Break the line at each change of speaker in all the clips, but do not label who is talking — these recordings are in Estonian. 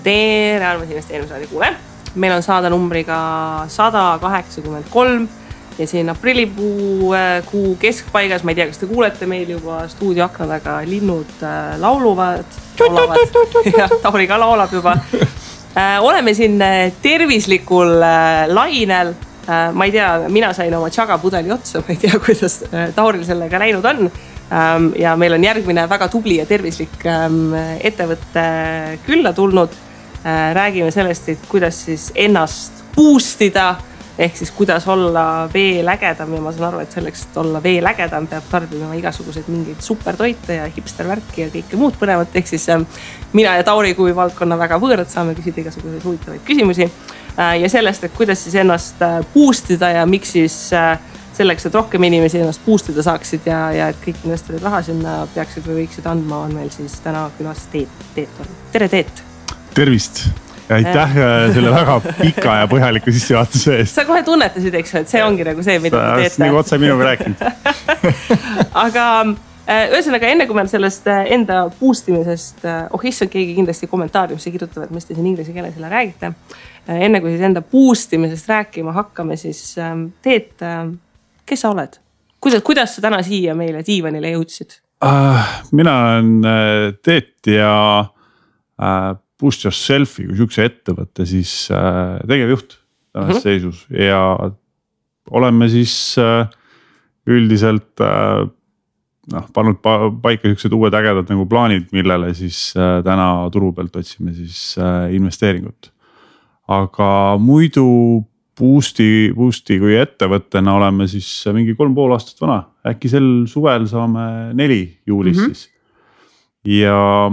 tere armsad investeerimisraadi kuule. Meil on saada numbriga 183 ja siin aprillikuu keskpaigas, ma ei tea, kas te kuulete meil juba stuudioakna taga linnud laulavad ja Tauri ka laulab juba. Oleme siin tervislikul lainel. Ma ei tea, mina sain oma tšagapudeli otsa, ma ei tea, kuidas Tauril sellega läinud on. Ja meil on järgmine väga tubli ja tervislik ettevõtte külla tulnud. Räägime sellest, et kuidas siis ennast boostida, ehk siis kuidas olla veel ägedam ja ma saan aru, et selleks, et olla veel ägedam, peab tarbima igasugused mingid supertoite ja hipstervärki ja kõike muud põnevat. Ehk siis mina ja Tauri kui valdkonna väga võõrad saame küsida igasuguseid huvitavaid küsimusi ja sellest, et kuidas siis ennast boostida ja miks siis selleks, et rohkem inimesi ennast boostida saaksid ja et kõik investorid raha sinna peaksid või võiksid andma, on meil siis täna külas Teet. Tere Teet!
Tervist! Ja aitäh selle väga pika ja põhjaliku sissejuhatuse eest.
Sa kohe tunnetasid, eks, et see ongi nagu see, mida te teete.
Nagu otse minuga rääkinud.
Aga ühesõnaga, enne kui me sellest enda boostimisest, issand, keegi kindlasti kommentaariumisse kirjutavad, mis te siin inglise keeles selle räägite. Enne kui siis enda boostimisest rääkima hakkame, siis Teet, kes sa oled? Kuidas sa täna siia meile diivanile jõudsid?
Mina olen Teet ja Boost Yourselfi kui sükse ettevõtte siis tegevjuht tänases seisus ja oleme siis üldiselt pannud paika sellised uued ägedad nagu plaanid, millele siis täna turu pealt otsime siis investeeringut. Aga muidu Boosti kui ettevõttena oleme siis mingi 3,5 aastat vana. Äkki sel suvel saame 4 juulis siis. Ja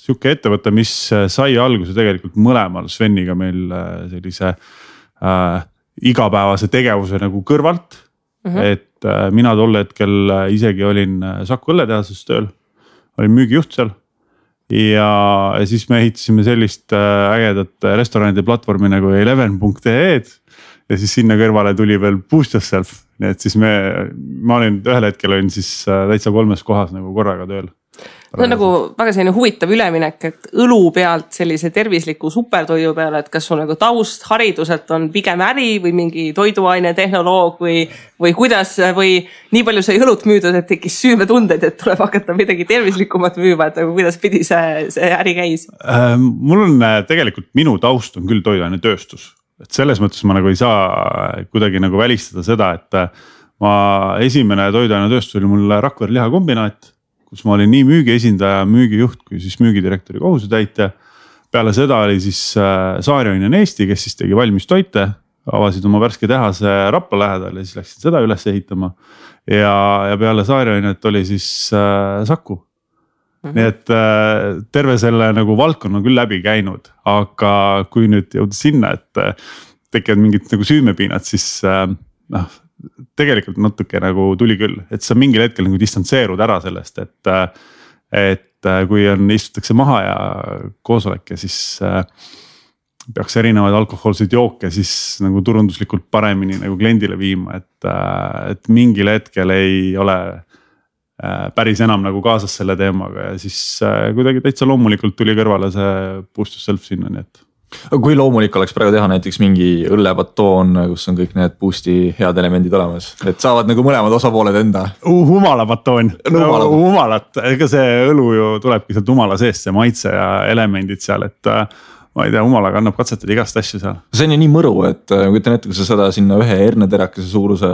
siuke ettevõte, mis sai alguse tegelikult mõlemal Sveniga meil sellise igapäevase tegevuse nagu kõrvalt. Et mina tol hetkel isegi olin Saku õlletehases tööl, olin müügijuht seal ja siis me ehitasime sellist ägedat restoranide platvormi nagu 11.ee ja siis sinna kõrvale tuli veel Boost Yourself. Nii et siis ma olin ühel hetkel olin siis täitsa 3 kohas nagu korraga tööl.
See on nagu väga selline huvitav üleminek, et õlu pealt sellise tervisliku supertoidu peale, et kas sul nagu taust hariduselt on pigem äri või mingi toiduaine tehnoloog või kuidas või nii palju sai õlut müüdud, et tekkis süümetunded, et tuleb hakata midagi tervislikumat müüma, et nagu kuidas pidi see äri käis?
Mul on tegelikult minu taust on küll toiduaine tööstus, et selles mõttes ma nagu ei saa kuidagi nagu välistada seda, et ma esimene toiduaine tööstus oli mul Rakvere lihakombinaat, kus ma olin nii müügiesindaja, müügijuht kui siis müügidirektori kohusetäitja. Peale seda oli siis Saarjoinen Eesti, kes siis tegi valmis toite, avasid oma värske tehase Rapla lähedal ja siis läksid seda üles ehitama. Ja peale Saarjoinet oli siis Saku. Nii et terve selle nagu valdkonna küll läbi käinud, aga kui nüüd jõuda sinna, et tekivad mingid nagu süümepiinad, siis tegelikult natuke nagu tuli küll, et sa mingil hetkel nagu distantseerud ära sellest, et kui istutakse maha ja koosolek ja siis peaks erinevaid alkohoolseid jooke siis nagu turunduslikult paremini nagu kliendile viima, et mingil hetkel ei ole päris enam nagu kaasas selle teemaga ja siis kuidagi täitsa loomulikult tuli kõrvale see Boost Yourself sinna, nii et.
Kui loomulik oleks praegu teha näiteks mingi õllepatoon, kus on kõik need Boosti head elemendid olemas, et saavad nagu mõlemad osapooled enda.
Humalapatoon, humalat, ega see õlu ju tulebki sealt humala seest, see maitse ja elemendid seal, et ma ei tea, humalaga annab katsetada igast asju seal. See
on ju nii mõru, et kujutan ette, kui sa seda sinna ühe herneterakese suuruse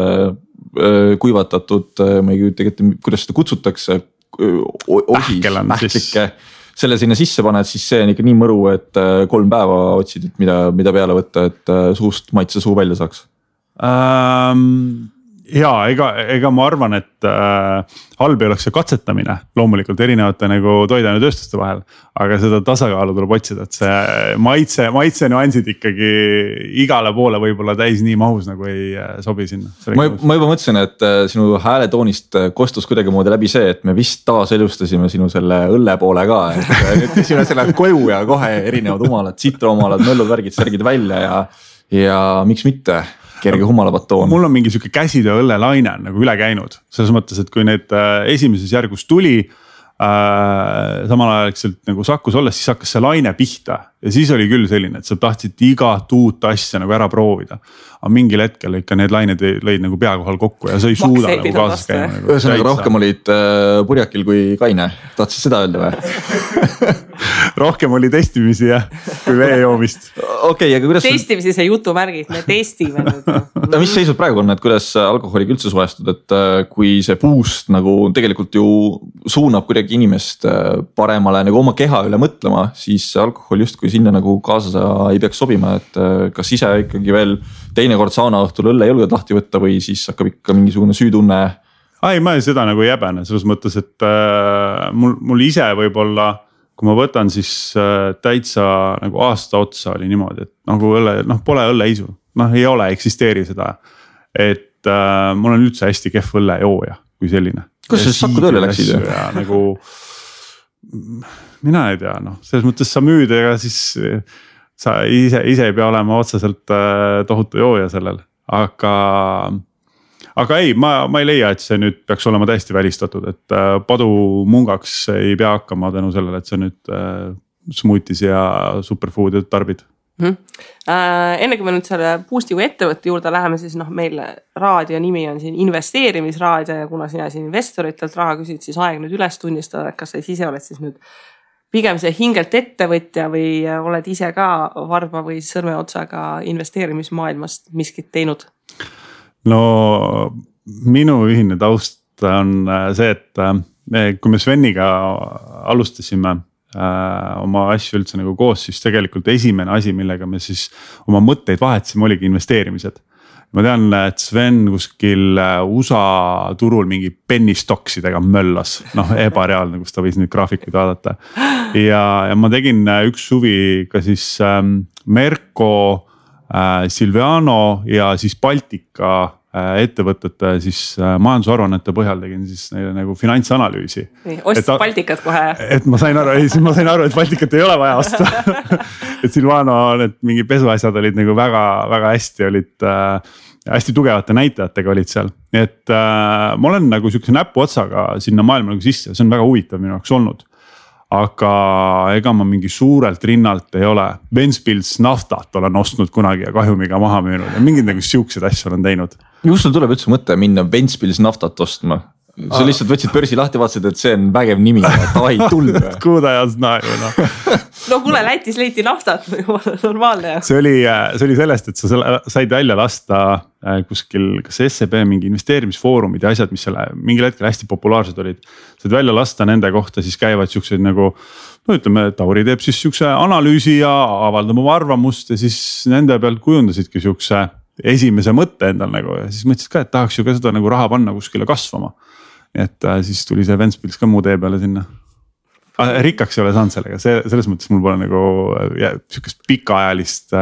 kuivatatud, ma ei kujuta ette, kuidas seda kutsutakse, pähklike. Selle sinna sisse paned, siis see on ikka nii mõru, et 3 päeva otsid, et mida peale võtta, et suust maitse suu välja saaks.
Jaa, ega ma arvan, et halb ei oleks see katsetamine loomulikult erinevate nagu toiduaine tööstuste vahel, aga seda tasakaalu tuleb otsida, et see maitse nüansid ikkagi igale poole võib-olla täis nii mahus nagu ei sobi sinna.
Ma juba mõtlesin, et sinu hääletoonist kostus kuidagi moodi läbi see, et me vist taaselustasime sinu selle õlle poole ka, et nüüd sinu lähed koju ja kohe erinevad humalad, sitrohumalad, möllud, värgid, särgid välja ja miks mitte? Kerge humalapatoon.
Mul on mingi siuke käsitöö õllelaine nagu üle käinud. Selles mõttes, et kui need esimeses järgus tuli, samal ajal nagu Sakus olles, siis hakkas see laine pihta ja siis oli küll selline, et sa tahtsid igat uut asja nagu ära proovida. Aga mingil hetkel ikka need lained lõid nagu pea kohal kokku ja sa ei suuda nagu kaasas käima. Nagu
ühesõnaga rohkem olid purjakil kui kaine, tahtsid seda öelda või?
Rohkem oli testimisi jah, kui vee joomist.
Okay, aga kuidas
testimisi see jutumärgid, me testime nüüd.
No mis seisud praegu on, et kuidas alkoholiga üldse suhestud, et kui see boost nagu tegelikult ju suunab kuidagi inimest paremale nagu oma keha üle mõtlema, siis alkohol justkui sinna nagu kaasa ei peaks sobima, et kas ise ikkagi veel teinekord sauna õhtul õlle ei julge tahti võtta või siis hakkab ikka mingisugune süütunne?
Ai, ma seda nagu ei jäbene, selles mõttes, et mul ise võib-olla, kui ma võtan siis täitsa nagu aasta otsa oli niimoodi, et nagu õlle, pole õlleisu, ei ole, eksisteeri seda. Et mul on üldse hästi kehv õllejooja kui selline.
Kus sa Saku tööle läksid?
Nagu, mina ei tea, selles mõttes sa müüd, ega siis sa ise ei pea olema otseselt tohutu jooja sellel, aga ei, ma ei leia, et see nüüd peaks olema täiesti välistatud, et padu mungaks ei pea hakkama tänu sellele, et see nüüd smoothies ja superfoodi tarbid.
Enne kui me nüüd selle Boosti kui ettevõtte juurde läheme, siis meil raadio nimi on siin investeerimisraadio ja kuna sina siin investoritelt raha küsid, siis aeg nüüd üles tunnistada, et kas sa ise oled siis nüüd pigem see hingelt ettevõtja või oled ise ka varba või sõrmeotsaga investeerimismaailmast miskit teinud?
No minu ühine taust on see, et kui me Sveniga alustasime oma asju üldse nagu koos, siis tegelikult esimene asi, millega me siis oma mõtteid vahetasime, oligi investeerimised. Ma tean, et Sven kuskil USA turul mingi penny stocksidega möllas, ebareaalne, kus ta võis nüüd graafikuid vaadata. Ja ma tegin üks suvi ka siis Merko, Silviano ja siis Baltika ettevõtete siis majandusaruannete põhjal tegin siis neile nagu finantsanalüüsi.
Ostis Baltikat kohe.
Et ma sain aru, et Baltikat ei ole vaja osta. Et Silvano, need mingi pesuasjad olid nagu väga, väga hästi olid, hästi tugevate näitajatega olid seal. Et ma olen nagu siukse näpu otsaga sinna maailma nagu sisse, see on väga huvitav minu jaoks olnud. Aga ega ma mingi suurelt rinnalt ei ole. Ventspils naftat olen ostnud kunagi ja kahjumiga maha müünud ja mingid nagu siuksed asju olen teinud.
Kus sul tuleb üldse mõte minna Ventspils naftat ostma? Sa lihtsalt võtsid börsi lahti, vaatasid, et see on vägev nimi, davai, tulnud.
Kuuda ja znaju,
No kuule, Lätis leiti naftat, normaalne.
See oli sellest, et sa said välja lasta kuskil, kas SEB mingi investeerimisfoorumid ja asjad, mis selle mingil hetkel hästi populaarsed olid. Said välja lasta nende kohta, siis käivad siuksed nagu, ütleme, Tauri teeb siis siukse analüüsi ja avaldab oma arvamust ja siis nende pealt kujundasidki siukse esimese mõtte endal nagu ja siis mõtlesid ka, et tahaks ju ka seda nagu raha panna kuskile kasvama. Et siis tuli see Ventspils ka muu tee peale sinna. Rikkaks ei ole saanud sellega, selles mõttes mul pole nagu siukest pikaajalist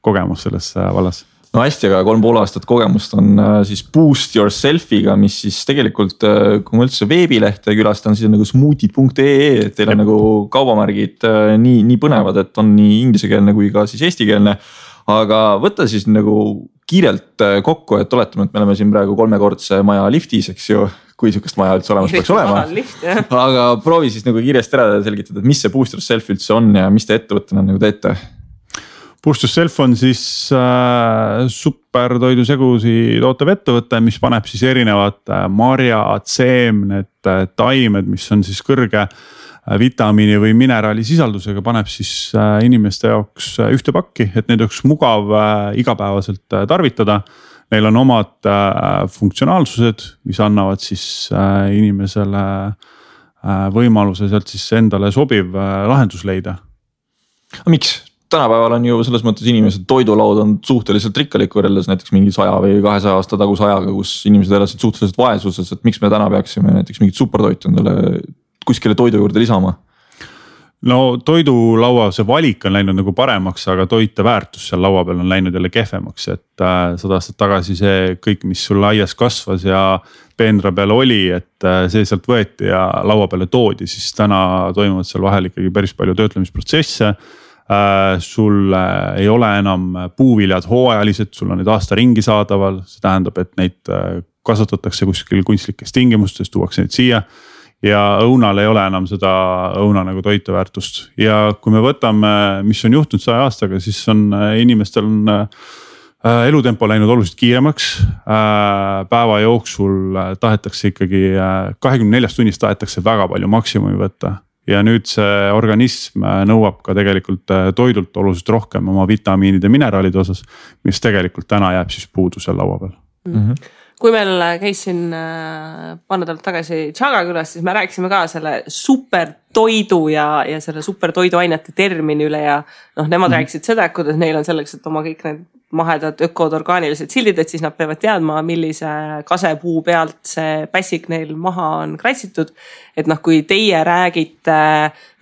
kogemus selles vallas.
No hästi, aga 3,5 aastat kogemust on siis Boost Yourselfiga, mis siis tegelikult, kui ma üldse veebilehte külastan, siis on nagu smoothid.ee, et teil on nagu kaubamärgid nii põnevad, et on nii ingliskeelne kui ka siis eestikeelne. Aga võtta siis nagu kiirelt kokku, et oletame, et me oleme siin praegu 3-kordse maja liftis, eks ju, kui sihukest maja üldse olemas peaks olema. Aga proovi siis nagu kiiresti ära selgitada, et mis see Boost Yourself üldse on ja mis te ettevõttena nagu teete?
Boost Yourself on siis supertoidusegusi tootev ettevõte, mis paneb siis erinevad marjad, seemned, taimed, mis on siis kõrge vitamiini või mineraali sisaldusega, paneb siis inimeste jaoks ühte pakki, et neid oleks mugav igapäevaselt tarvitada. Neil on omad funktsionaalsused, mis annavad siis inimesele võimaluse sealt siis endale sobiv lahendus leida.
Miks? Tänapäeval on ju selles mõttes inimesed toidulaud on suhteliselt rikkalik võrreldes näiteks mingi 100 või 200 aasta taguse ajaga, kus inimesed elasid suhteliselt vaesuses, et miks me täna peaksime näiteks mingit supertoitu endale kuskile toidu juurde lisama?
No toidulaua see valik on läinud nagu paremaks, aga toite väärtus seal laua peal on läinud jälle kehvemaks, et 100 aastat tagasi see kõik, mis sul aias kasvas ja peenra peal oli, et see sealt võeti ja laua peale toodi, siis täna toimuvad seal vahel ikkagi päris palju töötlemisprotsesse. Sul ei ole enam puuviljad hooajalised, sul on need aasta ringi saadaval, see tähendab, et neid kasvatatakse kuskil kunstlikes tingimustes, tuuakse neid siia. ja õunal ei ole enam seda õuna nagu toiteväärtust ja kui me võtame, mis on juhtunud 100 aastaga, siis on inimestel on elutempo läinud oluliselt kiiremaks. Päeva jooksul tahetakse ikkagi 24 tunnist tahetakse väga palju maksimumi võtta ja nüüd see organism nõuab ka tegelikult toidult oluliselt rohkem oma vitamiinide ja mineraalide osas, mis tegelikult täna jääb siis puudu seal laua peal.
Kui meil käis siin paar nädalat tagasi Tšaga külas, siis me rääkisime ka selle supertoidu ja selle supertoiduainete termini üle ja nemad rääkisid seda, kuidas neil on selleks, et oma kõik need mahedad ökod orgaanilised sildid, et siis nad peavad teadma, millise kasepuu pealt see pässik neil maha on kratsitud. Et kui teie räägite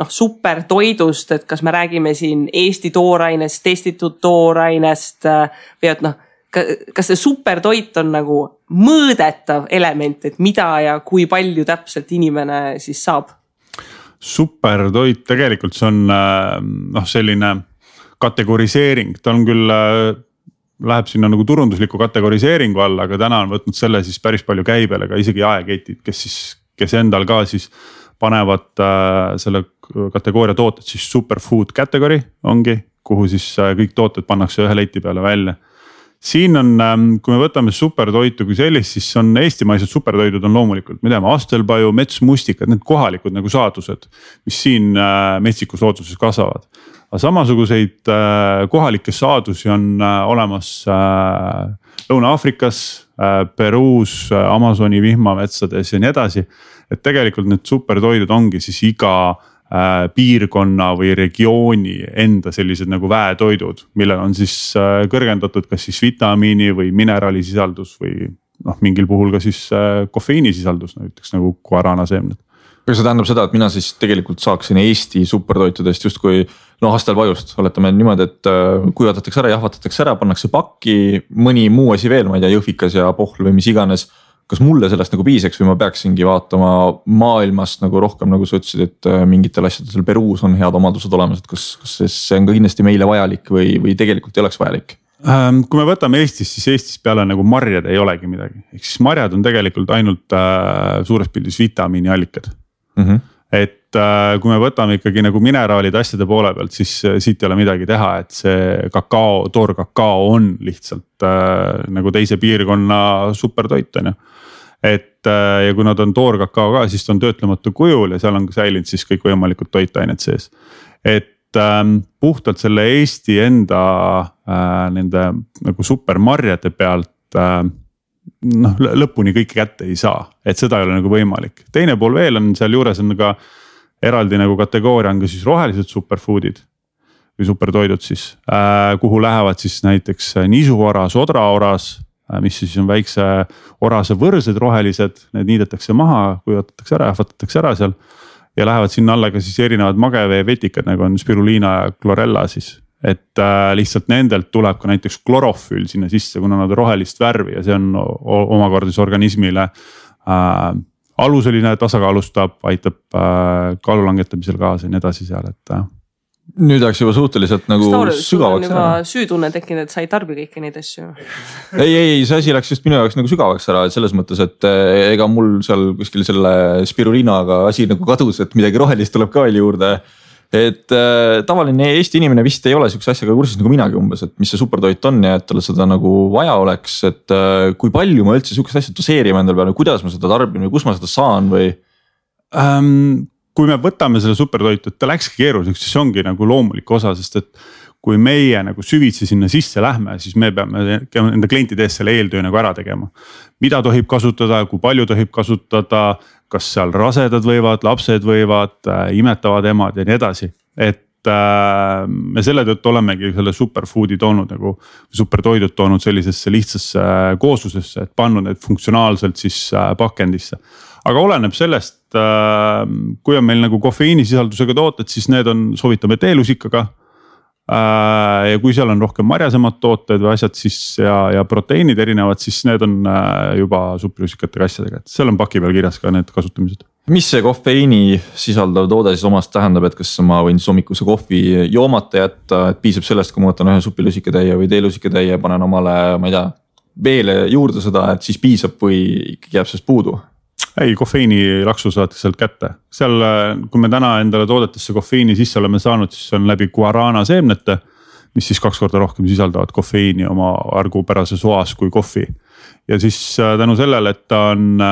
supertoidust, et kas me räägime siin Eesti toorainest, testitud toorainest või et kas see supertoit on nagu mõõdetav element, et mida ja kui palju täpselt inimene siis saab?
Supertoit tegelikult see on selline kategoriseering, ta on küll, läheb sinna nagu turundusliku kategoriseeringu alla, aga täna on võtnud selle siis päris palju käibele ka isegi jaeketid, kes endal ka siis panevad selle kategooria tooted siis superfood category ongi, kuhu siis kõik tooted pannakse ühe leti peale välja. Siin on, kui me võtame supertoitu kui sellist, siis on eestimaised supertoidud on loomulikult, me teame astelpaju, metsmustikad, need kohalikud nagu saadused, mis siin metsikus looduses kasvavad. Aga samasuguseid kohalikke saadusi on olemas Lõuna-Aafrikas, Peruus, Amazoni vihmametsades ja nii edasi. Et tegelikult need supertoidud ongi siis iga piirkonna või regiooni enda sellised nagu väetoidud, millel on siis kõrgendatud kas siis vitamiini või mineraalisisaldus või mingil puhul ka siis kofeiinisisaldus, näiteks nagu guaranaseemned.
Kas see tähendab seda, et mina siis tegelikult saaksin Eesti supertoitudest justkui astelpajust, oletame niimoodi, et kuivatatakse ära, jahvatatakse ära, pannakse pakki, mõni muu asi veel, ma ei tea, jõhvikas ja pohl või mis iganes. Kas mulle sellest nagu piiseks või ma peaksingi vaatama maailmast nagu rohkem, nagu sa ütlesid, et mingitel asjadel seal Peruus on head omadused olemas, et kas see on ka kindlasti meile vajalik või tegelikult ei oleks vajalik?
Kui me võtame Eestis, siis Eestis peale nagu marjad ei olegi midagi. Ehk siis marjad on tegelikult ainult suures pildis vitamiiniallikad. Et kui me võtame ikkagi nagu mineraalid asjade poole pealt, siis siit ei ole midagi teha, et see kakao, toorkakao on lihtsalt nagu teise piirkonna supertoit on ju. Et ja kui nad on toorkakao ka, siis ta on töötlematu kujul ja seal on säilinud siis kõik võimalikud toitained sees. Et puhtalt selle Eesti enda nende nagu supermarjade pealt lõpuni kõike kätte ei saa, et seda ei ole nagu võimalik. Teine pool veel on seal juures on ka eraldi nagu kategooria on ka siis rohelised superfoodid või supertoidud siis, kuhu lähevad siis näiteks nisuoras, odraoras, mis siis on väikse orase võrsed rohelised, need niidetakse maha, kuivatatakse ära, jahvatatakse ära seal ja lähevad sinna alla ka siis erinevad magevee vetikad, nagu on spirulina ja chlorella siis. Et lihtsalt nendelt tuleb ka näiteks klorofüül sinna sisse, kuna nad on rohelist värvi ja see on omakorda organismile aluseline tasakaalustab, aitab kaalu langetamisel kaasa ja nii edasi seal, et
nüüd oleks juba suhteliselt nagu sügavaks
ära. Süütunne tekkinud, et sa ei tarbi kõiki neid asju.
Ei, see asi läks just minu jaoks nagu sügavaks ära, et selles mõttes, et ega mul seal kuskil selle spirulinaga asi nagu kadus, et midagi rohelist tuleb ka veel juurde. Et tavaline Eesti inimene vist ei ole siukse asjaga kursis nagu minagi umbes, et mis see supertoit on ja et talle seda nagu vaja oleks, et kui palju ma üldse siukest asja doseerima endal peale, kuidas ma seda tarbin või kus ma seda saan või?
Kui me võtame selle supertoitu, et ta läkski keeruliseks, siis ongi nagu loomulik osa, sest et kui meie nagu süvitsi sinna sisse lähme, siis me peame enda klientide ees selle eeltöö nagu ära tegema. Mida tohib kasutada, kui palju tohib kasutada, kas seal rasedad võivad, lapsed võivad, imetavad emad ja nii edasi. Et me selle tõttu olemegi selle superfoodi toonud nagu supertoidud toonud sellisesse lihtsasse kooslusesse, et pannud need funktsionaalselt siis pakendisse. Aga oleneb sellest, kui on meil nagu kofeiinisisaldusega tooted, siis need on, soovitame teelusikaga. Ja kui seal on rohkem marjasemad tooted või asjad siis ja proteiinid erinevad, siis need on juba superjusikatega asjadega, et seal on paki peal kirjas ka need kasutamised.
Mis see kofeiini sisaldav toode siis omast tähendab, et kas ma võin hommikuse kohvi joomata jätta, et piisab sellest, kui ma võtan ühe supilusikatäie või teelusikatäie, panen omale, ma ei tea, veele juurde seda, et siis piisab või ikkagi jääb sellest puudu?
ei, kofeiinilaksu saate sealt kätte. Seal, kui me täna endale toodetesse kofeiini sisse oleme saanud, siis on läbi guarana seemnete, mis siis 2 korda rohkem sisaldavad kofeiini oma argupärases oas kui kohvi. Ja siis tänu sellele, et ta on,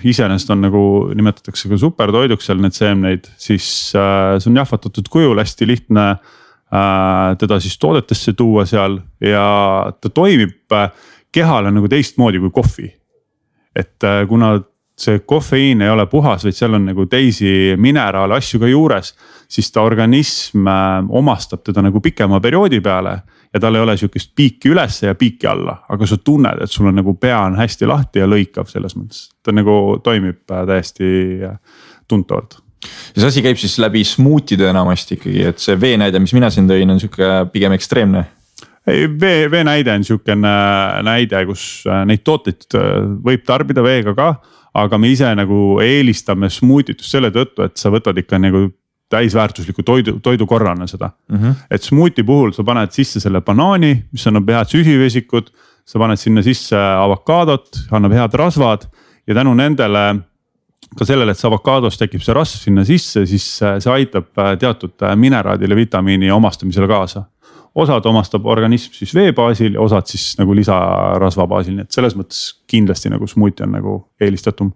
iseenesest on nagu nimetatakse ka supertoiduks seal need seemneid, siis see on jahvatatud kujul, hästi lihtne teda siis toodetesse tuua seal ja ta toimib kehale nagu teistmoodi kui kohvi. Et kuna see kofeiin ei ole puhas, vaid seal on nagu teisi mineraale asju ka juures, siis ta organism omastab teda nagu pikema perioodi peale ja tal ei ole sihukest piiki ülesse ja piiki alla, aga sa tunned, et sul on nagu pea on hästi lahti ja lõikav selles mõttes. Ta nagu toimib täiesti tuntavalt.
Ja see asi käib siis läbi smuutide enamasti ikkagi, et see veenäide, mis mina siin tõin, on sihuke pigem ekstreemne.
Ei, veenäide on sihukene näide, kus neid tooteid võib tarbida veega ka, aga me ise nagu eelistame smuutitust selle tõttu, et sa võtad ikka nagu täisväärtusliku toidukorrana seda. Et smuuti puhul sa paned sisse selle banaani, mis annab head süsivesikud, sa paned sinna sisse avokaadot, annab head rasvad ja tänu nendele ka sellele, et see avokaados tekib see rasv sinna sisse, siis see aitab teatud mineraadile, vitamiini omastamisele kaasa. Osad omastab organism siis vee baasil ja osad siis nagu lisarasva baasil, nii et selles mõttes kindlasti nagu smuuti on nagu eelistatum.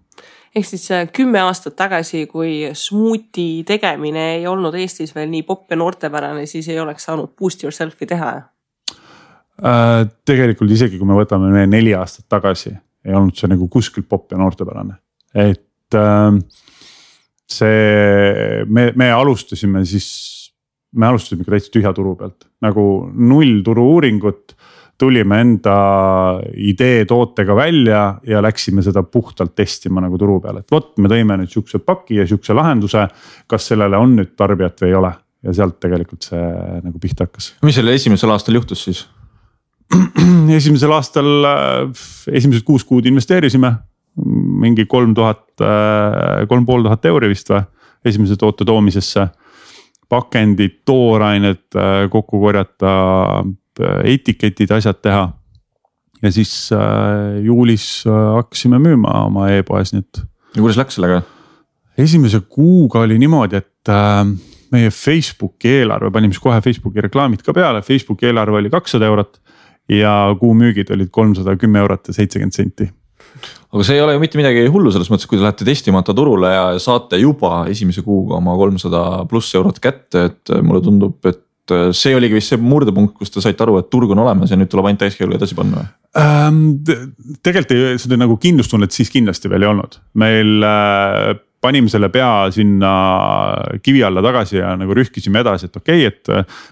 Ehk siis 10 aastat tagasi, kui smuuti tegemine ei olnud Eestis veel nii popp ja noortepärane, siis ei oleks saanud boost yourself'i teha?
Tegelikult isegi kui me võtame 4 aastat tagasi, ei olnud see nagu kuskilt popp ja noortepärane. Et see, me alustasime ka täitsa tühja turu pealt, nagu 0 turu uuringut, tulime enda idee tootega välja ja läksime seda puhtalt testima nagu turu peal, et vot me tõime nüüd sihukese paki ja sihukese lahenduse, kas sellele on nüüd tarbijat või ei ole ja sealt tegelikult see nagu pihta hakkas.
Mis selle esimesel aastal juhtus siis?
Esimesel aastal esimesed 6 kuud investeerisime mingi 3500 euri vist või esimese toote toomisesse. Pakendid, toorained kokku korjata, etiketid, asjad teha. Ja siis juulis hakkasime müüma oma e-poes.
Ja kuidas läks sellega?
Esimese kuuga oli niimoodi, et meie Facebooki eelarve, panime siis kohe Facebooki reklaamid ka peale. Facebooki eelarve oli 200 eurot ja kuu müügid olid 310 eurot ja 70 senti.
Aga see ei ole ju mitte midagi hullu selles mõttes, kui te lähete testimata turule ja saate juba esimese kuuga oma 300+ eurot kätte, et mulle tundub, et see oligi vist see murdepunkt, kus te saite aru, et turg on olemas ja nüüd tuleb ainult täiskäilu edasi panna.
Tegelikult seda nagu kindlustunnet siis kindlasti veel ei olnud. Meil panime selle pea sinna kivi alla tagasi ja nagu rühkisime edasi, et okei, et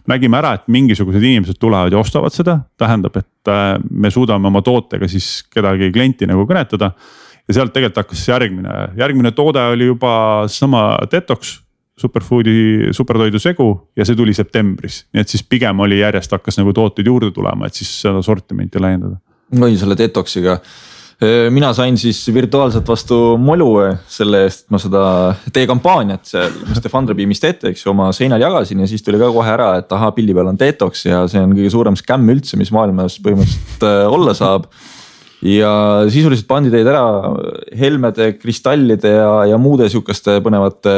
nägime ära, et mingisugused inimesed tulevad ja ostavad seda. Tähendab, et me suudame oma tootega siis kedagi klienti nagu kõnetada ja sealt tegelikult hakkas järgmine toode oli juba sama Detox superfoodi supertoidu segu ja see tuli septembris. Nii et siis pigem oli järjest hakkas nagu tooteid juurde tulema, et siis seda sortimenti laiendada.
Või selle Detoxiga. Mina sain siis virtuaalselt vastu molu selle eest, et ma seda teie kampaaniat seal, mis te Fundrabeamist teete, eks ju, oma seinal jagasin ja siis tuli ka kohe ära, et aha, pildi peal on Detox ja see on kõige suurem skämm üldse, mis maailmas põhimõtteliselt olla saab. Ja sisuliselt pandi teid ära helmede, kristallide ja muude sihukeste põnevate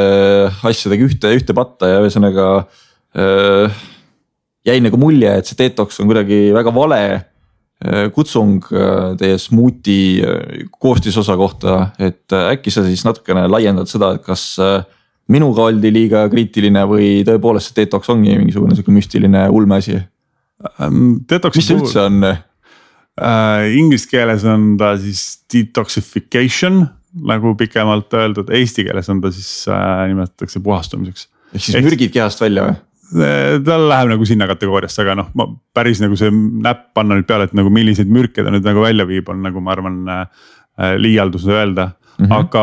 asjadega ühte patta ja ühesõnaga jäi nagu mulje, et see Detox on kuidagi väga vale kutsung teie smuuti koostisosa kohta, et äkki sa siis natukene laiendad seda, et kas minuga oldi liiga kriitiline või tõepoolest see Detox ongi mingisugune müstiline ulmeasi? Mis see üldse on?
Inglise keeles on ta siis detoxification, nagu pikemalt öeldud, eesti keeles on ta siis nimetatakse puhastumiseks.
Ehk siis mürgid kehast välja või?
Tal läheb nagu sinna kategooriasse, aga ma päris nagu see näpp panna nüüd peale, et nagu milliseid mürke ta nüüd nagu välja viib, on nagu ma arvan liialdus öelda. Aga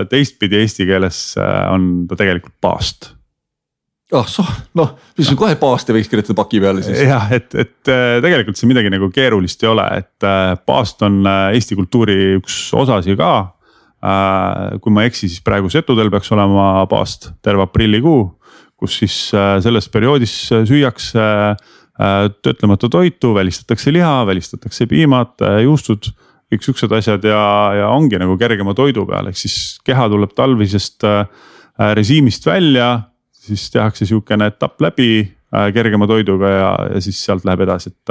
teistpidi eesti keeles on ta tegelikult paast.
Mis on kohe paast ja võiks kirjutada paki peale siis?
Jah, et tegelikult see midagi nagu keerulist ei ole, et paast on Eesti kultuuri üks osasi ka. Kui ma eksi, siis praegu Setudel peaks olema paast terve aprillikuu, kus siis selles perioodis süüakse töötlemata toitu, välistatakse liha, välistatakse piimad, juustud kõik siuksed asjad ja ongi nagu kergema toidu peal, ehk siis keha tuleb talvisest režiimist välja, siis tehakse siukene etapp läbi kergema toiduga ja siis sealt läheb edasi, et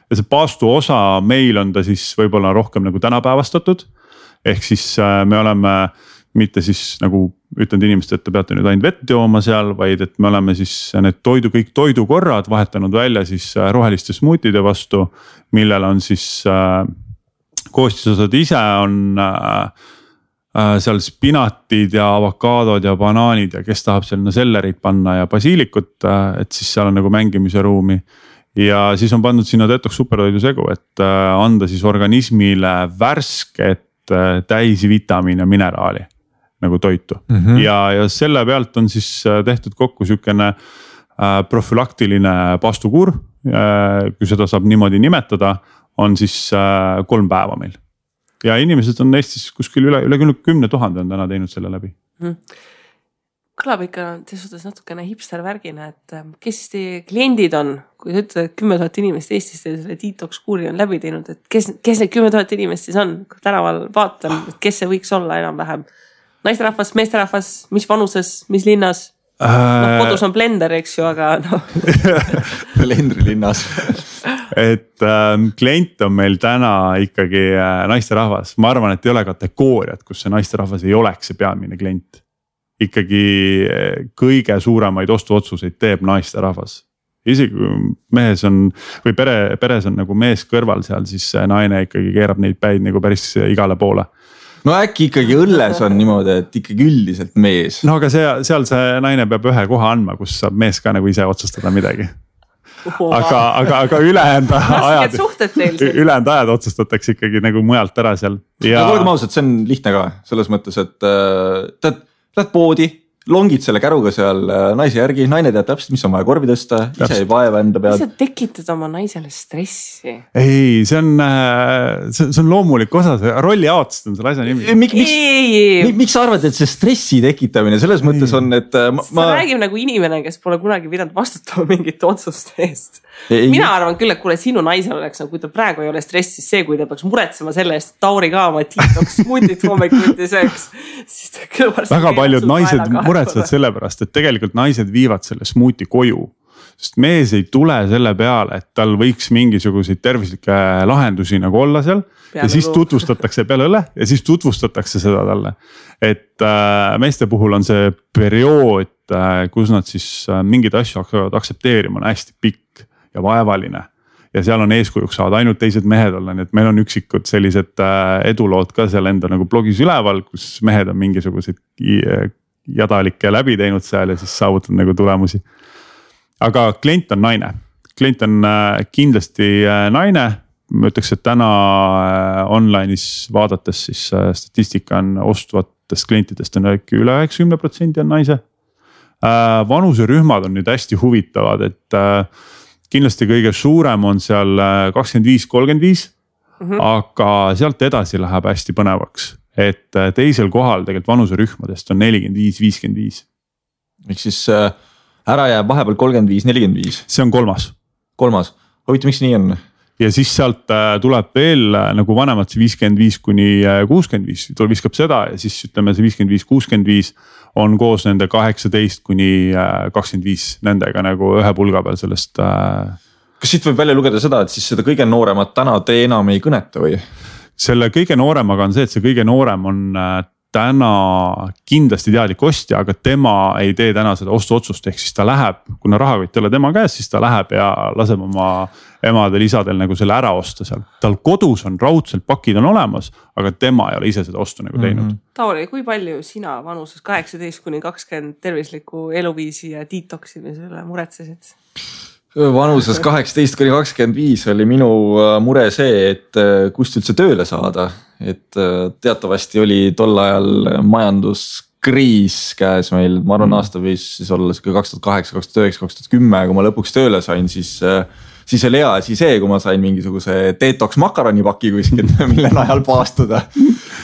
ja see paastu osa meil on ta siis võib-olla rohkem nagu tänapäevastatud. Ehk siis me oleme mitte siis nagu ütlenud inimestele, et te peate nüüd ainult vett jooma seal, vaid et me oleme siis need kõik toidukorrad vahetanud välja siis roheliste smuutide vastu, millel on siis koostisosad ise on seal spinatid ja avokaadod ja banaanid ja kes tahab sinna sellerit panna ja basiilikut, et siis seal on nagu mängimise ruumi. Ja siis on pandud sinna detox supertoidu segu, et anda siis organismile värsket täisvitamiin ja mineraali nagu toitu. Ja selle pealt on siis tehtud kokku sükene profülaktiline paastukuur, kui seda saab niimoodi nimetada, on siis 3 päeva meil. Ja inimesed on Eestis kuskil üle 10 000 on täna teinud selle läbi.
Kõlab ikka suhtes natukene hipster värgina, et kes siis teie kliendid on, kui sa ütled, et 10 000 inimest Eestis selle detox kuuri on läbi teinud, et kes need 10 000 inimest siis on, kui tänaval vaatan, et kes see võiks olla enam-vähem? Naisterahvas, meesterahvas, mis vanuses, mis linnas? Kodus on blender, eks ju, aga
Blendri linnas.
Et klient on meil täna ikkagi naisterahvas. Ma arvan, et ei ole kategooriat, kus see naisterahvas ei oleks see peamine klient. Ikkagi kõige suuremaid ostuotsuseid teeb naisterahvas. Isegi mehes on või peres on nagu mees kõrval seal, siis naine ikkagi keerab neid päid nagu päris igale poole.
No äkki ikkagi õlles on niimoodi, et ikkagi üldiselt mees.
No aga seal see naine peab ühe koha andma, kus saab mees ka nagu ise otsustada midagi. Aga ülejäänud ajad otsustatakse ikkagi nagu mujalt ära seal.
Aga olgem ausad, see on lihtne ka selles mõttes, et lähed poodi, longid selle käruga seal naise järgi, naine teab täpselt, mis on vaja korvi tõsta, ise ei vaeva enda peal.
Sa tekitad oma naisele stressi.
Ei, see on loomulik osa, see rolli jaotust on selle asja nimi.
Miks sa arvad, et see stressi tekitamine selles mõttes on, et
sa räägib nagu inimene, kes pole kunagi pidanud vastutama mingite otsuste eest. Mina arvan küll, et kuule sinu naisel oleks, kui ta praegu ei ole stressis see, kui ta peaks muretsema selle eest, Tauri ka oma detox smuutit hommikuti sööks.
Väga paljud naised muretsevad selle pärast, et tegelikult naised viivad selle smuuti koju. Sest mees ei tule selle peale, et tal võiks mingisuguseid tervislikke lahendusi nagu olla seal. Ja siis tutvustatakse peale õle ja siis tutvustatakse seda talle. Et meeste puhul on see periood, kus nad siis mingid asju hakkavad aksepteerima, on hästi pikk ja vaevaline. Ja seal on eeskujuks saada ainult teised mehed olla, nii et meil on üksikud sellised edulood ka seal enda nagu blogis üleval, kus mehed on mingisuguseid jadalikke läbi teinud seal ja siis saavutanud nagu tulemusi. Aga klient on naine, klient on kindlasti naine, ma ütleks, et täna online'is vaadates siis statistika on ostvatest klientidest on üle 90% on naise. Vanuserühmad on nüüd hästi huvitavad, et kindlasti kõige suurem on seal 25-35, aga sealt edasi läheb hästi põnevaks, et teisel kohal tegelikult vanuserühmadest on 45-55.
Miks siis ära jääb vahepeal 35-45?
See on kolmas.
Huvitav, miks nii on?
Ja siis sealt tuleb veel nagu vanemad see 55-65, viskab seda ja siis ütleme see 55-65 on koos nende 18-25 nendega nagu ühe pulga peal sellest.
Kas siit võib välja lugeda seda, et siis seda kõige nooremat täna te enam ei kõneta või?
Selle kõige nooremaga on see, et see kõige noorem on täna kindlasti teadlik ostja, aga tema ei tee täna seda ostuotsust, ehk siis ta läheb, kuna rahakott ei ole tema käes, siis ta läheb ja laseb oma emadel, isadel nagu selle ära osta seal. Tal kodus on raudselt pakid on olemas, aga tema ei ole ise seda ostu nagu teinud.
Tauri, kui palju sina vanuses 18-20 tervisliku eluviisi ja detoximisele muretsesid?
Vanuses 18-25 oli minu mure see, et kust üldse tööle saada. Et teatavasti oli tol ajal majanduskriis käes meil, ma arvan aasta võis siis olla 2008, 2009, 2010, kui ma lõpuks tööle sain, siis oli hea asi see, kui ma sain mingisuguse detox makaronipaki kuskilt, mille najal paastuda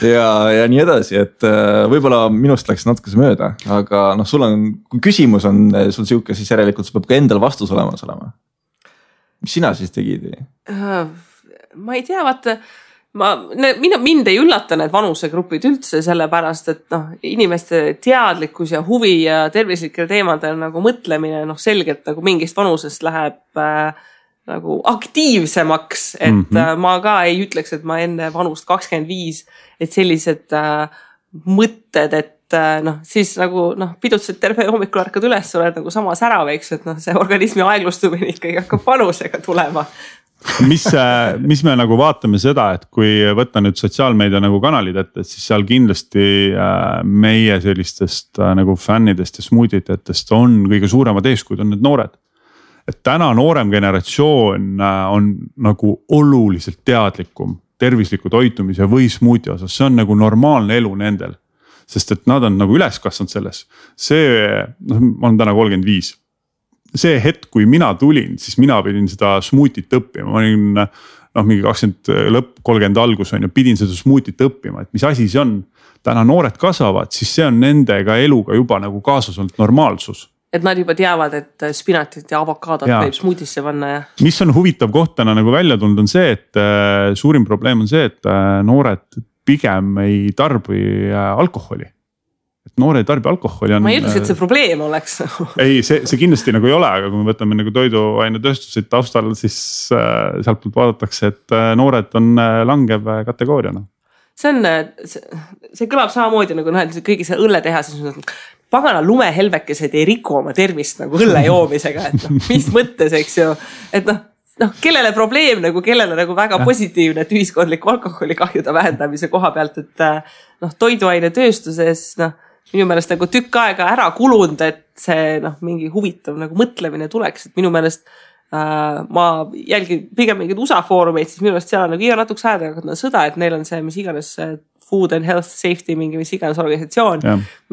ja nii edasi, et võib-olla minust läks natuke see mööda, aga sul on, kui küsimus on sul siuke, siis järelikult sul peab ka endal vastus olema. Mis sina siis tegid?
Ma ei tea, vaata, mind ei üllata need vanusegrupid üldse sellepärast, et inimeste teadlikkus ja huvi ja tervislikel teemadel nagu mõtlemine selgelt nagu mingist vanusest läheb nagu aktiivsemaks, et ma ka ei ütleks, et ma enne vanust 25, et sellised mõtted, et siis nagu pidutsid terve hommikul ärkad üles, oled nagu sama särav, eks, et see organismi aeglustumine ikkagi hakkab vanusega tulema.
mis me nagu vaatame seda, et kui võtta nüüd sotsiaalmeedia nagu kanalid ette, siis seal kindlasti meie sellistest nagu fännidest ja smuutitajatest on kõige suuremad eeskujud on need noored. Et täna noorem generatsioon on nagu oluliselt teadlikum tervisliku toitumise või smuuti osas, see on nagu normaalne elu nendel. Sest et nad on nagu üles kasvanud selles. Ma olen täna 35. See hetk, kui mina tulin, siis mina pidin seda smuutit õppima. Ma olin mingi 20 lõpp, 30 algus on ja pidin seda smuutit õppima, et mis asi see on. Täna noored kasvavad, siis see on nendega eluga juba nagu kaasas olnud normaalsus.
Et nad juba teavad, et spinatit ja avokaadot võib smuutisse panna. Ja.
Mis on huvitav koht täna nagu välja tulnud on see, et suurim probleem on see, et noored pigem ei tarbi alkoholi. Et noore ei tarbi alkoholi on.
Ma ei ütleks, et see probleem oleks.
Ei, see kindlasti nagu ei ole, aga kui me võtame nagu toiduainetööstusid taustal, siis sealt poolt vaadatakse, et noored on langev kategooriana. See kõlab samamoodi nagu kõigi see õlle teha, siis pagana lumehelvekesed ei riku oma tervist nagu õlle joomisega, et mis mõttes, eks ju, et kellele probleem nagu, kellele nagu väga positiivne, et ühiskondliku alkoholikahjude vähendamise koha pealt, et toiduainetööstuses minu meelest nagu tükk aega ära kulunud, et see mingi huvitav nagu mõtlemine tuleks, et minu meelest ma jälgin pigem mingid USA foorumeid, siis minu meelest seal on nagu iga natuks aega sõda, et neil on see, mis iganes Food and Health Safety, mingi mis iganes organisatsioon,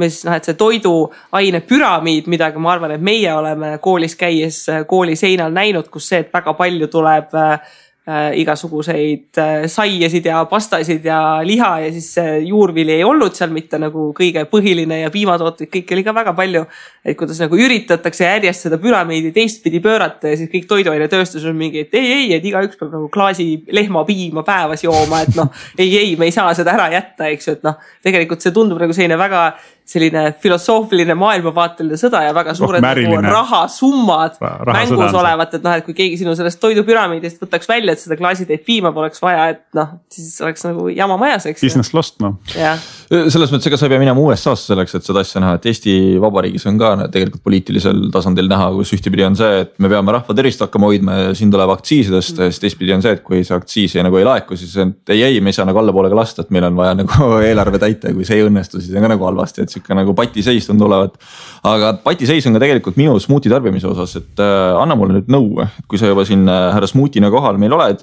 mis et see toiduaine püramiid, midagi ma arvan, et meie oleme koolis käies kooli seinal näinud, kus see, et väga palju tuleb igasuguseid saiasid ja pastasid ja liha ja siis juurvili ei olnud seal mitte nagu kõige põhiline ja piimatooted, kõik oli ka väga palju, et kuidas nagu üritatakse järjest seda püramiidi teistpidi pöörata ja siis kõik toiduainetööstus on mingi, et ei, et igaüks peab nagu klaasi lehmapiima päevas jooma, et ei, me ei saa seda ära jätta, eks ju, et tegelikult see tundub nagu selline filosoofiline maailmavaateline sõda ja väga suured nagu rahasummad mängus olevat, et kui keegi sinu sellest toidupüramiidist võtaks välja, et seda klaasitäit piima poleks vaja, et siis oleks nagu jama majas, eks. Business lost,
Selles mõttes, ega sa ei pea minema USA-sse selleks, et seda asja näha, et Eesti Vabariigis on ka tegelikult poliitilisel tasandil näha, kus ühtepidi on see, et me peame rahva tervist hakkama hoidma ja siin tuleb aktsiisidest, siis teistpidi on see, et kui see aktsiis nagu ei laeku, siis ei, me ei saa nagu allapoolega lasta, et meil on vaja nagu eelarve täita ja kui see ei õnnestu, siis on ka nagu halvasti, et siuke nagu patiseis tundub olevat. Aga patiseis on ka tegelikult minu smuuti tarbimise osas, et anna mulle nüüd nõu, kui sa juba siin härra smuutina kohal meil oled,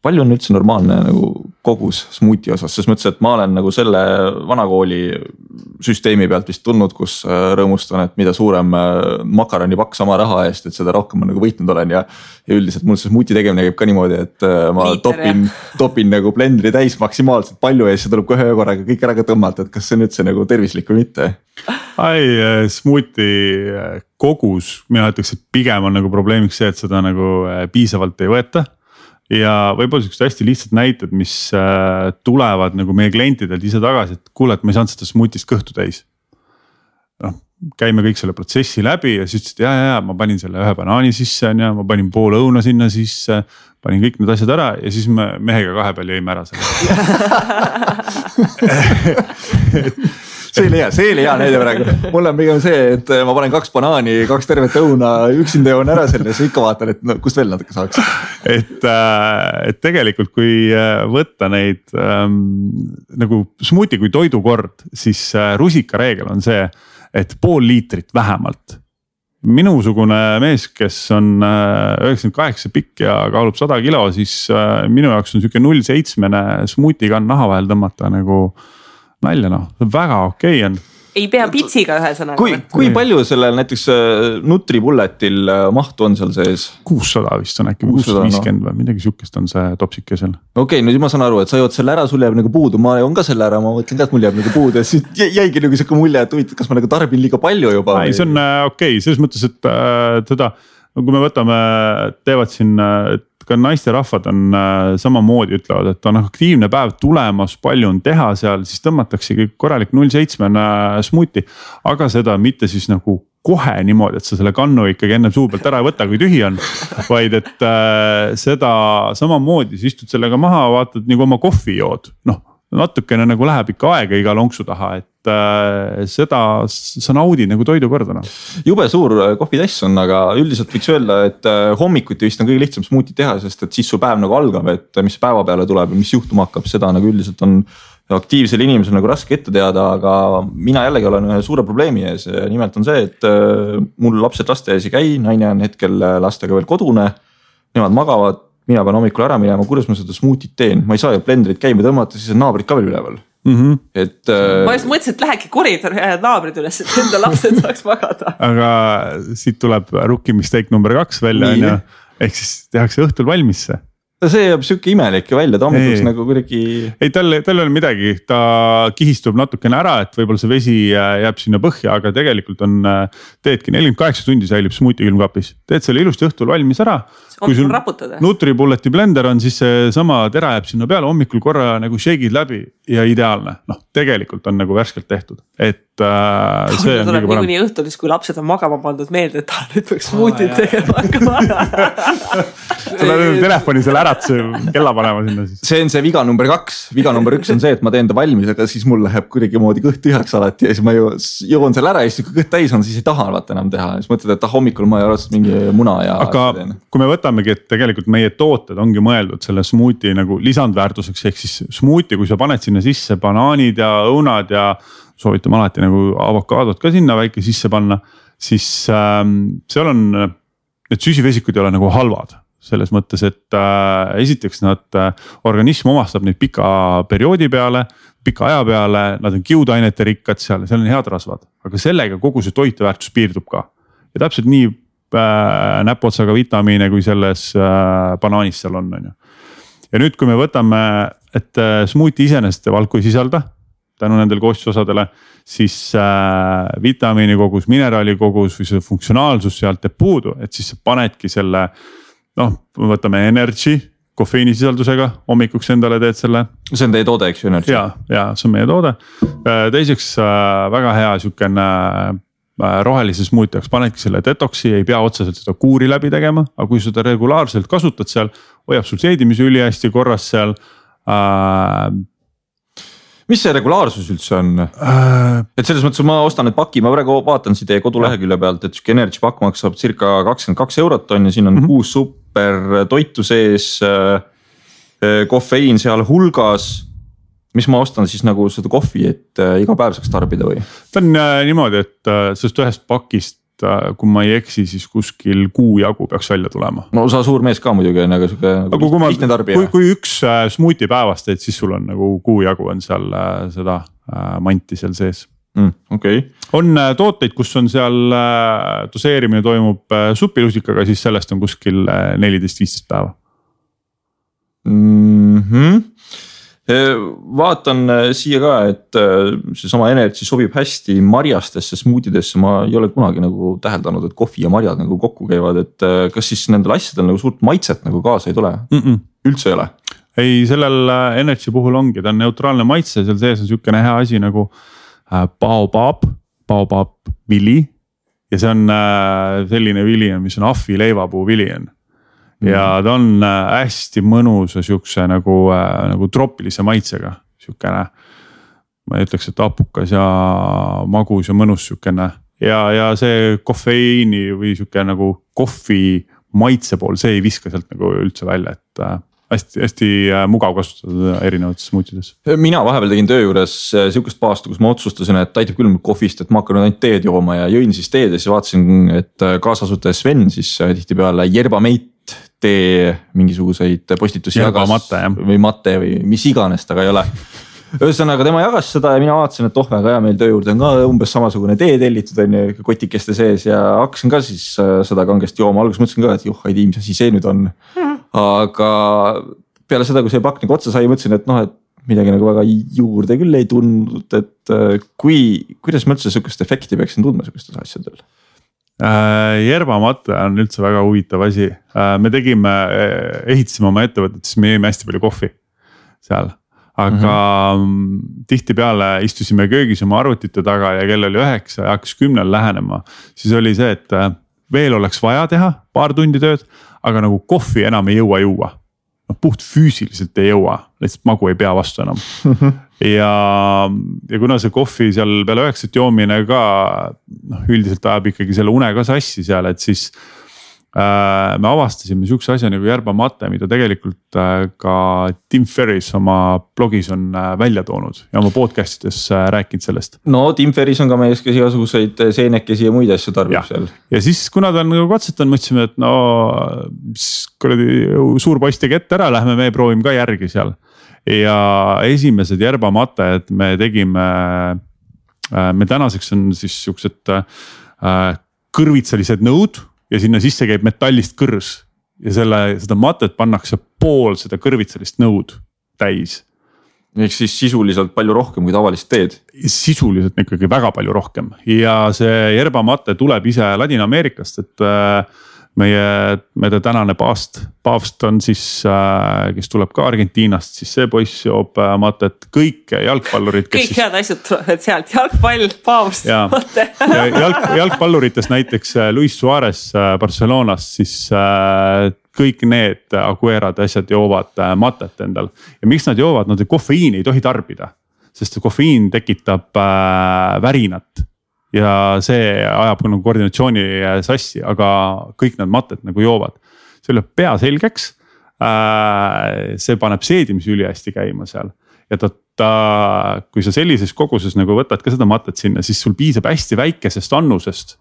palju on üldse normaalne nagu kogus smuuti osas, sest mõtlesin, et ma olen nagu selle vanakooli süsteemi pealt vist tulnud, kus rõõmustan, et mida suurem makaroni pakk sama raha eest, et seda rohkem ma nagu võitnud olen ja üldiselt mul see smuuti tegemine käib ka niimoodi, et ma topin nagu blendri täis maksimaalselt palju ja siis tuleb kohe korraga kõik ära ka tõmmata, et kas see on üldse nagu tervislik või mitte?
Smuuti kogus, mina ütleks, et pigem on nagu probleemiks see, et seda nagu piisavalt ei võeta. Ja võib-olla sellised hästi lihtsad näited, mis tulevad nagu meie klientidelt ise tagasi, et kuule, et ma ei saanud seda smuutist kõhtu täis. Käime kõik selle protsessi läbi ja siis ütlesid, ja, ma panin selle ühe banaani sisse, ja ma panin pool õuna sinna sisse, panin kõik need asjad ära ja siis me mehega kahe peal jõime ära selle.
See oli hea näide praegu. Mul on pigem see, et ma panen 2 banaani, 2 tervet õuna, üksinda joon ära selle, siis ikka vaatan, et kust veel natuke saaks.
Et tegelikult kui võtta neid nagu smuuti kui toidukord, siis rusika reegel on see, et pool liitrit vähemalt. Minusugune mees, kes on 98 pikk ja kaalub 100 kilo, siis minu jaoks on siuke 0,7 smuutiga naha vahel tõmmata nagu nalja, väga okei on.
Ei pea pitsiga ühesõnaga.
Kui palju sellel näiteks Nutribulletil mahtu on seal sees?
600 vist on äkki, 650 või midagi siukest on see topsike seal.
Okei, nüüd ma saan aru, et sa jood selle ära, sul jääb nagu puudu, ma joon ka selle ära, ma mõtlen ka, et mul jääb nagu puudu ja siis jäigi nagu siuke mulje, et kas ma nagu tarbin liiga palju juba?
Ei, see on okei, selles mõttes, et teda no kui me võtame, teevad siin, ka naisterahvad on samamoodi ütlevad, et on aktiivne päev tulemas, palju on teha seal, siis tõmmataksegi korralik 0,7 smuuti, aga seda mitte siis nagu kohe niimoodi, et sa selle kannu ikkagi enne suu pealt ära ei võta, kui tühi on, vaid et seda samamoodi, sa istud sellega maha, vaatad nagu oma kohvi jood, noh natukene nagu läheb ikka aega iga lonksu taha, et seda sa naudid nagu toidukordana.
Jube suur kohvitass on, aga üldiselt võiks öelda, et hommikuti vist on kõige lihtsam smuuti teha, sest et siis su päev nagu algab, et mis päeva peale tuleb ja mis juhtuma hakkab, seda nagu üldiselt on aktiivsel inimesel nagu raske ette teada, aga mina jällegi olen ühe suure probleemi ees. Nimelt on see, et mul lapsed lasteaias ei käi, naine on hetkel lastega veel kodune, nemad magavad. Mina pean hommikul ära minema, kuidas ma seda smuutit teen, ma ei saa ju blenderit käima tõmmata, siis on naabrid ka veel üleval. Et,
ma just mõtlesin, et lähegi koridor ja naabrid üles, et enda lapsed saaks magada.
Aga siit tuleb rookie mistake number 2 välja, ehk siis tehakse õhtul valmis see.
See jääb siuke imelik välja, ta hommikuks nagu kuidagi.
Ei, tal ei ole midagi, ta kihistub natukene ära, et võib-olla see vesi jääb sinna põhja, aga tegelikult on, teedki 48 tundi säilib smuuti külmkapis. Teed selle ilusti õhtul valmis ära. Kui sul Nutribulleti blender on, siis see sama tera jääb sinna peale, hommikul korra nagu shake'id läbi ja ideaalne. Noh, tegelikult on nagu värskelt tehtud, et see on
kõige parem. Nii õhtul, kui lapsed on magama pandud meelde, et ta nüüd peaks smuutit tegema hakkama.
Tuleb telefoni selle äratuse kella panema sinna siis.
See on see viga number 2. Viga number 1 on see, et ma teen ta valmis, aga siis mul läheb kuidagi moodi kõht tühjaks alati ja siis ma joon selle ära ja siis kui kõht täis on, siis ei taha enam teha. Siis mõtled, et hommikul ma ei ole mingi muna ja.
Aga kui me võtamegi, et tegelikult meie tooted ongi mõeldud selle smuuti nagu lisandväärtuseks, ehk siis smuuti, kui sa paned sinna sisse banaanid ja õunad ja soovitame alati nagu avokaadot ka sinna väike sisse panna, siis seal on, need süsivesikud ei ole nagu halvad. Selles mõttes, et esiteks nad organism omastab neid pika perioodi peale, pika aja peale, nad on kiudainete rikkad seal on head rasvad, aga sellega kogu see toiteväärtus piirdub ka. Ja täpselt nii näpotsaga vitamiine, kui selles banaanis seal on. Ja nüüd, kui me võtame, et smuuti iseenesest valku ei sisalda, tänu nendel koostisosadele, siis vitamiini kogus, mineraali kogus või see funktsionaalsus sealt teeb puudu, et siis sa panedki selle noh, võtame energy, kofeiinisisaldusega, hommikuks endale teed selle.
See on teie toode, eks ju?
Ja, see on meie toode. Teiseks väga hea siukene rohelise smuuti jaoks panedki selle detoksi, ei pea otseselt seda kuuri läbi tegema, aga kui seda regulaarselt kasutad seal, hoiab sul seedimise üli hästi korras seal.
Mis see regulaarsus üldse on? Et selles mõttes ma ostan need paki, ma praegu vaatan siin teie kodulehekülje pealt, et siuke energy pakk maksab circa 22 eurot on ja siin on 6 super toitu sees, kofeiin seal hulgas. Mis ma ostan siis nagu seda kohvi, et iga päev saaks tarbida või?
Ta on niimoodi, et sellest ühest pakist, kui ma ei eksi, siis kuskil kuu jagu peaks välja tulema.
No sa suur mees ka muidugi on, aga lihtne tarbija.
Kui üks smuuti päevast teed, siis sul on nagu kuu jagu on seal seda manti seal sees.
Okay.
On tooteid, kus on seal doseerimine toimub supilusikaga, siis sellest on kuskil 14-15 päeva.
Vaatan siia ka, et see sama energy sobib hästi marjastesse smuutidesse, ma ei ole kunagi nagu täheldanud, et kohvi ja marjad nagu kokku käivad, et kas siis nendel asjadel nagu suurt maitset nagu kaasa ei tule? Üldse ei ole?
Ei, sellel energy puhul ongi, ta on neutraalne maitse, seal sees on siukene hea asi nagu baobab vili ja see on selline vili, mis on ahvi leivapuu vili on. Ja ta on hästi mõnusa siukse nagu tropilise maitsega, siukene, ma ütleks, et apukas ja magus ja mõnus siukene ja see kofeiini või siuke nagu kohvi maitse pool, see ei viska sealt nagu üldse välja, et hästi mugav kasutada erinevates smuutides.
Mina vahepeal tegin töö juures siukest paastu, kus ma otsustasin, et aitab küll kohvist, et ma hakkan ainult teed jooma ja jõin siis teed ja siis vaatasin, et kaasasutaja Sven siis tihti peale Yerbamate tee mingisuguseid postitusi või matte või mis iganes taga ei ole. Ühesõnaga tema jagas seda ja mina vaatasin, et väga hea meil töö juurde on ka umbes samasugune tee tellitud on ju kotikeste sees ja hakkasin ka siis seda kangesti jooma. Alguses mõtlesin ka, et ei tii, mis asi see nüüd on. Aga peale seda, kui see pakk nagu otsa sai, mõtlesin, et et midagi nagu väga juurde küll ei tundnud, et kuidas ma üldse sükest efekti peaksin tundma sükestes asjadel?
Järbamate on üldse väga huvitav asi. Me ehitasime oma ettevõtet, siis me jõime hästi palju kohvi seal. Aga tihtipeale istusime köögis oma arvutite taga ja kell oli 9 ja hakkas 10 lähenema. Siis oli see, et veel oleks vaja teha paar tundi tööd, aga nagu kohvi enam ei jõua juua. Puht füüsiliselt ei jõua, lihtsalt magu ei pea vastu enam. ja kuna see kohvi seal peale 9 joomine ka üldiselt ajab ikkagi selle une ka sassi seal, et siis me avastasime sihukese asja nagu järbamate, mida tegelikult ka Tim Ferriss oma blogis on välja toonud ja oma podcastides rääkinud sellest.
No Tim Ferriss on ka mees, kes igasuguseid seenekesi ja muid asju tarbib seal.
Ja siis kuna ta on nagu katsetanud, mõtlesime, et no suur poiss tegi ette ära, lähme me proovime ka järgi seal. Ja esimesed järbamated me tegime, me tänaseks on siis siuksed kõrvitsalised nõud. Ja sinna sisse käib metallist kõrs ja seda matet pannakse pool seda kõrvitsalist nõud täis.
Ehk siis sisuliselt palju rohkem kui tavalist teed.
Sisuliselt ikkagi väga palju rohkem ja see järbamate tuleb ise Ladina-Ameerikast, et meie tänane paavst on siis, kes tuleb ka Argentiinast, siis see poiss joob matet, kõik jalgpallurid.
Kõik head asjad tulevad sealt, jalgpall, paavst, mate.
Jalgpalluritest näiteks Luis Suarez Barcelonast, siis kõik need Aguerad asjad joovad matet endal. Ja miks nad joovad, nad kofeiini ei tohi tarbida, sest kofeiin tekitab värinat. Ja see ajab nagu koordinatsiooni sassi, aga kõik need matet nagu joovad. See lööb pea selgeks, see paneb seedimise üli hästi käima seal. Ja kui sa sellises koguses nagu võtad ka seda matet sinna, siis sul piisab hästi väikesest annusest.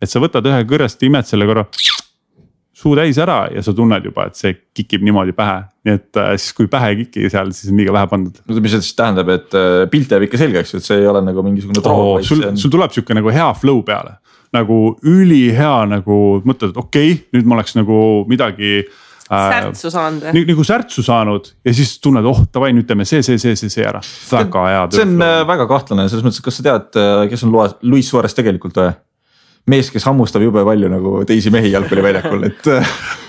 Et sa võtad ühe kõrrest, imed selle korra suu täis ära ja sa tunned juba, et see kikib niimoodi pähe. Nii et siis kui pähe ei kiki seal, siis on liiga vähe pandud.
No mis see siis tähendab, et pilt jääb ikka selgeks, et see ei ole nagu mingisugune troog.
Sul tuleb siuke nagu hea flow peale. Nagu ülihea nagu mõtled, et okei, nüüd ma oleks nagu midagi
särtsu saanud.
Nagu särtsu saanud ja siis tunned, tavai, nüüd teeme see ära. Väga hea.
See on väga kahtlane, selles mõttes, kas sa tead, kes on Luis Suarez tegelikult või? Mees, kes hammustab jube palju nagu teisi mehi jalgpalliväljakul, et.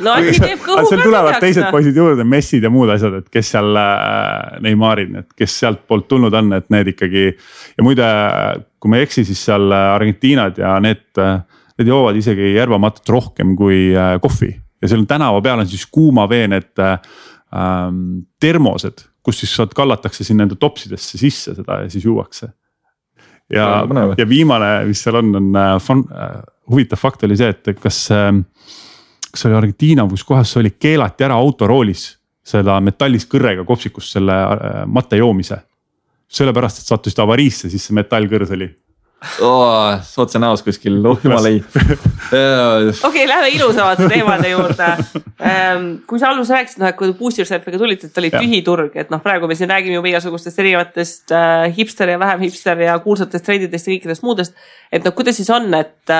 No äkki teeb kõhu
seal tulevad teised poisid juurde, Messid ja muud asjad, et kes seal Neymarid, et kes sealt poolt tulnud on, et need ikkagi. Ja muide, kui me eksi, siis seal Argentiinad ja need joovad isegi järbamatet rohkem kui kohvi. Ja seal on tänava peal on siis kuuma vee need termosed, kus siis kallatakse sinna enda topsidesse sisse seda ja siis juuakse. Ja viimane, mis seal on huvitav fakt oli see, et kas oli Argentiina, kus kohas see oli keelati ära autoroolis seda metallist kõrrega kopsikust selle matte joomise. Sellepärast, et sattusid avariisse, siis see metallkõrs oli.
Otse näos kuskil, jumal ei.
Okei, lähme ilusamate teemade juurde. Kui sa allus rääkisid, et kui Boost Yourselfiga tulid, et oli tühi turg, et praegu me siin räägime juba igasugustest erinevatest hipster ja vähem hipster ja kuulsatest trendidest ja kõikidest muudest, et kuidas siis on, et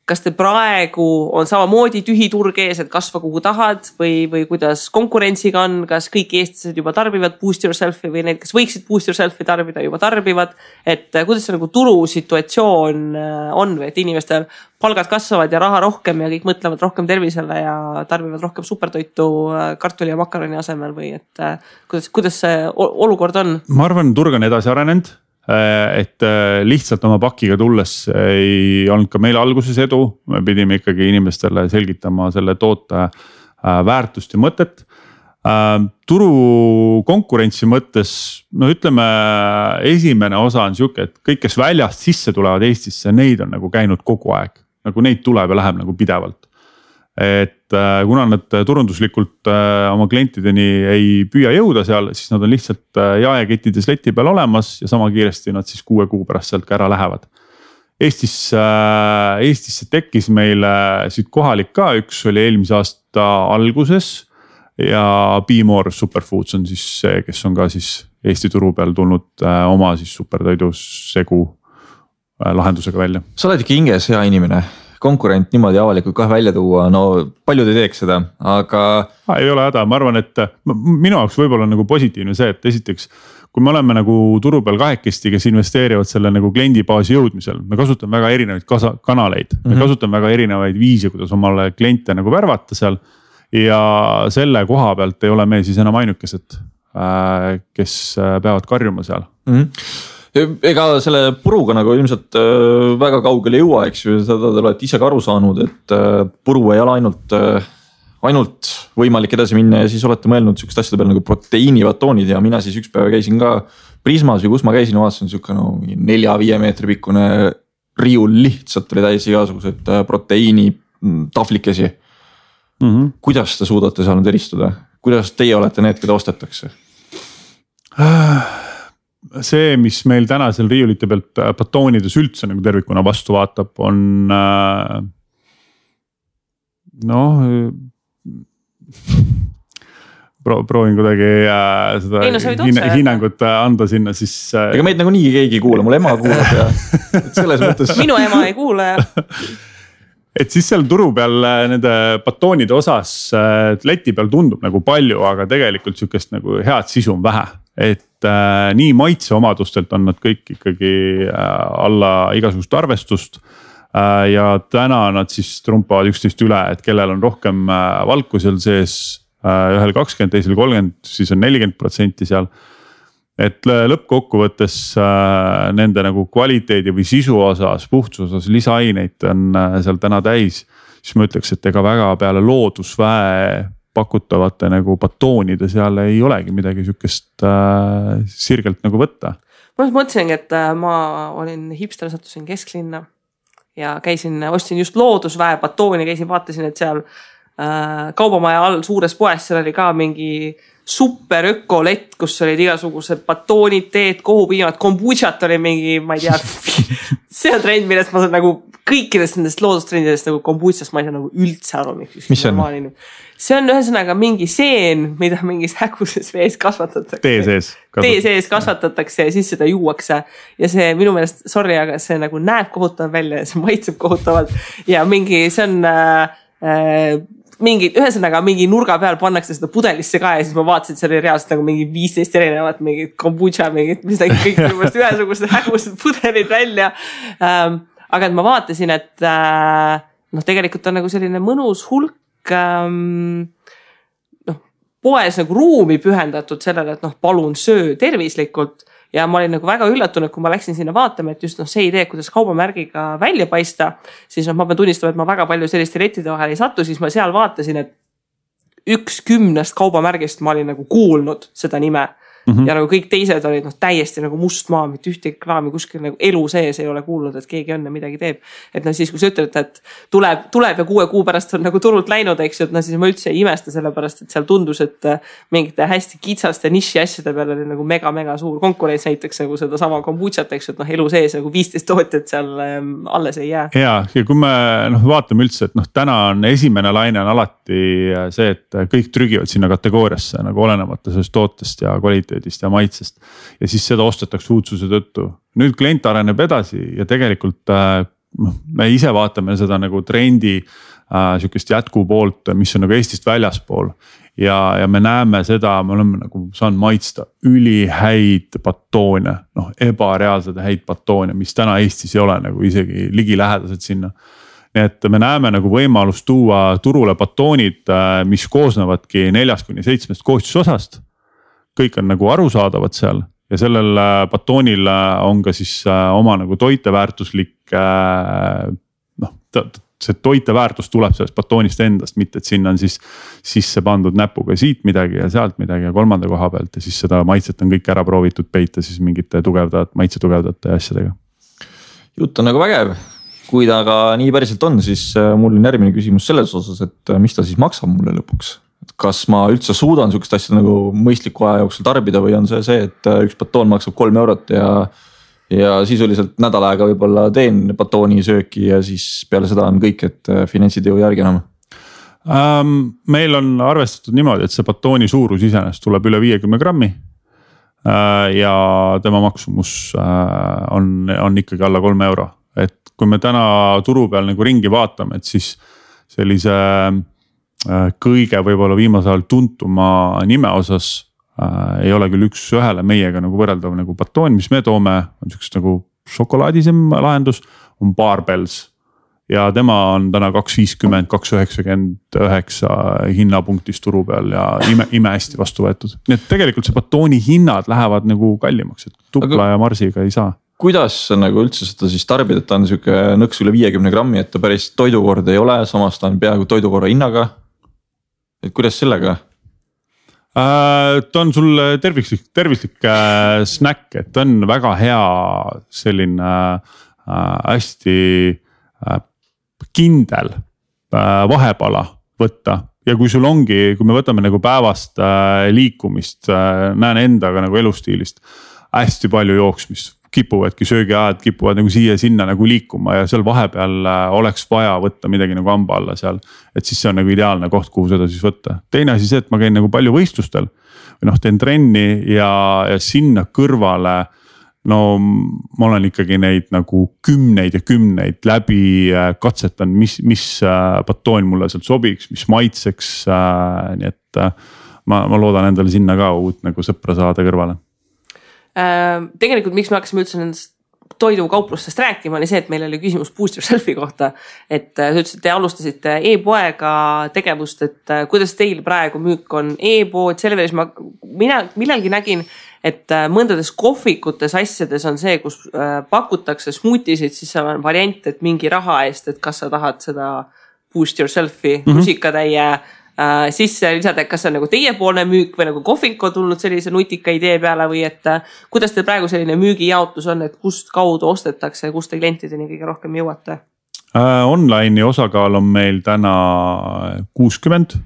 kas te praegu on samamoodi tühi turg ees, et kasva kuhu tahad või kuidas konkurentsiga on, kas kõik eestlased juba tarbivad Boost Yourselfi või need, kes võiksid Boost Yourselfi tarbida, juba tarbivad, et kuidas see nagu turusituatsioon on või et inimestel palgad kasvavad ja raha rohkem ja kõik mõtlevad rohkem tervisele ja tarbivad rohkem supertoitu kartuli ja makaroni asemel või et kuidas see olukord on?
Ma arvan, turg on edasi arenenud. Et lihtsalt oma pakiga tulles ei olnud ka meil alguses edu, me pidime ikkagi inimestele selgitama selle toote väärtust ja mõtet. Turu konkurentsi mõttes, no ütleme, esimene osa on siuke, et kõik, kes väljast sisse tulevad Eestisse, neid on nagu käinud kogu aeg, nagu neid tuleb ja läheb nagu pidevalt. Et kuna nad turunduslikult oma klientideni ei püüa jõuda seal, siis nad on lihtsalt jaekettides leti peal olemas ja sama kiiresti nad siis 6 kuu pärast sealt ka ära lähevad. Eestisse tekkis meile siit kohalik ka, üks oli eelmise aasta alguses ja Be More Superfoods on siis see, kes on ka siis Eesti turu peal tulnud oma siis supertoidu segu lahendusega välja.
Sa oled ikka hinges hea inimene. Konkurent niimoodi avalikult kohe välja tuua, no paljud ei teeks seda, aga.
Ei ole häda, ma arvan, et minu jaoks võib-olla nagu positiivne see, et esiteks, kui me oleme nagu turu peal kahekesti, kes investeerivad selle nagu kliendibaasi jõudmisel, me kasutame väga erinevaid kanaleid, me kasutame väga erinevaid viise, kuidas omale kliente nagu värvata seal. Ja selle koha pealt ei ole me siis enam ainukesed, kes peavad karjuma seal.
Ega selle puruga nagu ilmselt väga kaugele ei jõua, eks ju, seda te olete ise ka aru saanud, et puru ei ole ainult võimalik edasi minna ja siis olete mõelnud sükest asjade peale nagu proteiinibatoonid ja mina siis üks päev käisin ka Prismas või kus ma käisin, vaatasin sükka 4-5 meetri pikkune riiul lihtsalt oli täis igasugused proteiini tahvlikesi. Kuidas te suudate seal nüüd eristuda? Kuidas teie olete need, keda ostetakse?
See, mis meil täna seal riiulite pealt batoonides üldse nagu tervikuna vastu vaatab, on proovin kuidagi seda hinnangut anda sinna siis.
Ega meid nagu nii keegi ei kuule, mul ema kuulab ja selles mõttes.
Minu ema ei kuule ja.
Et siis seal turu peal nende batoonide osas leti peal tundub nagu palju, aga tegelikult sükest nagu head sisu on vähe. Et nii maitse omadustelt on nad kõik ikkagi alla igasugust arvestust. Ja täna nad siis trumpavad üksteist üle, et kellel on rohkem valku seal sees, ühel 20, teisel 30, siis on 40% seal. Et lõppkokkuvõttes nende nagu kvaliteedi või sisu osas, puhtuse osas lisaaineid on seal täna täis. Siis ma ütleks, et ega väga peale loodusväe pakutavate nagu batoonide seal ei olegi midagi sükest sirgelt nagu võtta.
Ma mõtlesingi, et ma olin hipster, sattusin kesklinna ja ostsin just loodusväe batooni, vaatasin, et seal kaubamaja all suures poes, seal oli ka mingi super ökolett, kus olid igasugused batoonid, teed, kohupiimad, kombutšat oli mingi, ma ei tea, see on trend, millest ma saan nagu kõikidest nendest loodustrendidest nagu kombutšast ma ei saa nagu üldse aru.
Mis see on?
See on ühesõnaga mingi seen, mida mingis häguses vees kasvatatakse.
Tee sees
kasvatatakse ja siis seda juuakse. Ja see minu meelest, sorry, aga see nagu näeb kohutav välja ja see maitseb kohutavalt. Ja mingi, see on ühesõnaga mingi nurga peal pannakse seda pudelisse ka ja siis ma vaatasin, et see oli reaalselt nagu mingi 15 erinevat mingit kombutša, mingit kõik ühesugused hägused pudelid välja. Aga et ma vaatasin, et tegelikult on nagu selline mõnus hulk poes nagu ruumi pühendatud sellele, et palun söö tervislikult ja ma olin nagu väga üllatunud, kui ma läksin sinna vaatama, et just see idee, kuidas kaubamärgiga välja paista, siis ma pean tunnistama, et ma väga palju selliste lettide vahel ei sattu, siis ma seal vaatasin, et 1/10 kaubamärgist ma olin nagu kuulnud seda nime. Ja nagu kõik teised olid täiesti nagu must maa, mitte ühtegi kraami kuskil nagu elu sees ei ole kuulnud, et keegi õnne midagi teeb. Et siis kui sa ütled, et tuleb ja 6 kuu pärast on nagu turult läinud, eks ju, et siis ma üldse ei imesta selle pärast, et seal tundus, et mingite hästi kitsaste niši asjade peal oli nagu mega suur konkurents näiteks nagu seda sama kombutšat, eks ju, et elu sees nagu 15 tootjat seal alles ei jää.
Ja kui me vaatame üldse, et täna on esimene laine on alati see, et kõik trügivad sinna kategooriasse nagu olenemata sellest tootest ja kvaliteedist ja maitsest ja siis seda ostetakse uudsuse tõttu. Nüüd klient areneb edasi ja tegelikult me ise vaatame seda nagu trendi sükest jätku poolt, mis on nagu Eestist väljaspool ja me näeme seda, me oleme nagu saanud maitsta ülihäid batoone, ebareaalsed häid batoone, mis täna Eestis ei ole nagu isegi ligilähedased sinna. Nii et me näeme nagu võimalust tuua turule batoonid, mis koosnevadki 4-7 koostisosast. Kõik on nagu arusaadavad seal ja sellel batoonil on ka siis oma nagu toiteväärtuslik, see toiteväärtus tuleb sellest batoonist endast, mitte et sinna on siis sisse pandud näpuga siit midagi ja sealt midagi ja kolmanda koha pealt ja siis seda maitset on kõik ära proovitud peita siis mingite maitse tugevdate asjadega.
Jutt on nagu vägev, kui ta aga nii päriselt on, siis mul on järgmine küsimus selles osas, et mis ta siis maksab mulle lõpuks? Kas ma üldse suudan sükest asja nagu mõistliku aja jooksul tarbida või on see, et üks batoon maksab 3 eurot ja sisuliselt nädal aega võib-olla teen batooni sööki ja siis peale seda on kõik, et finantsid ei järgi enam?
Meil on arvestatud niimoodi, et see batooni suurus iseenesest tuleb üle 50 grammi ja tema maksumus on ikkagi alla 3 euro. Et kui me täna turu peal nagu ringi vaatame, et siis sellise kõige võib-olla viimasel ajal tuntuma nime osas ei ole küll üks ühele meiega nagu võrreldav nagu batoon, mis me toome, on siukest nagu šokolaadisem lahendus, on Barbells. Ja tema on täna 2.50, 2.99 hinnapunktis turu peal ja ime hästi vastu võetud. Nii et tegelikult see batooni hinnad lähevad nagu kallimaks, et tupla ja marsiga ei saa.
Kuidas nagu üldse seda siis tarbida, et ta on siuke nõks üle 50 grammi, et ta päris toidukord ei ole, samas ta on peaaegu toidukorra hinnaga. Et kuidas sellega?
Ta on sul tervislik snäkk, et ta on väga hea selline hästi kindel vahepala võtta. Ja kui sul ongi, kui me võtame nagu päevast liikumist, näen endaga nagu elustiilist hästi palju jooksmist. Kipuvadki söögiajad, kipuvad nagu siia-sinna nagu liikuma ja seal vahepeal oleks vaja võtta midagi nagu hamba alla seal. Et siis see on nagu ideaalne koht, kuhu seda siis võtta. Teine asi see, et ma käin nagu palju võistlustel või teen trenni ja sinna kõrvale. No ma olen ikkagi neid nagu kümneid ja kümneid läbi katsetan, mis batoon mulle sealt sobiks, mis maitseks. Nii et ma loodan endale sinna ka uut nagu sõpra saada kõrvale.
Tegelikult miks me hakkasime üldse nendest toidukauplustest rääkima, oli see, et meil oli küsimus Boost Yourselfi kohta. Et sa ütlesid, te alustasite e-poega tegevust, et kuidas teil praegu müük on e-pood, selle veres mina millalgi nägin, et mõndades kohvikutes asjades on see, kus pakutakse smoothisid, siis seal on variant, et mingi raha eest, et kas sa tahad seda Boost Yourselfi rusikatäie sisse lisada, et kas see on nagu teiepoolne müük või nagu kohvik on tulnud sellise nutika idee peale või et kuidas teil praegu selline müügijaotus on, et kust kaudu ostetakse ja kust te klientideni kõige rohkem jõuate?
Online'i osakaal on meil täna 60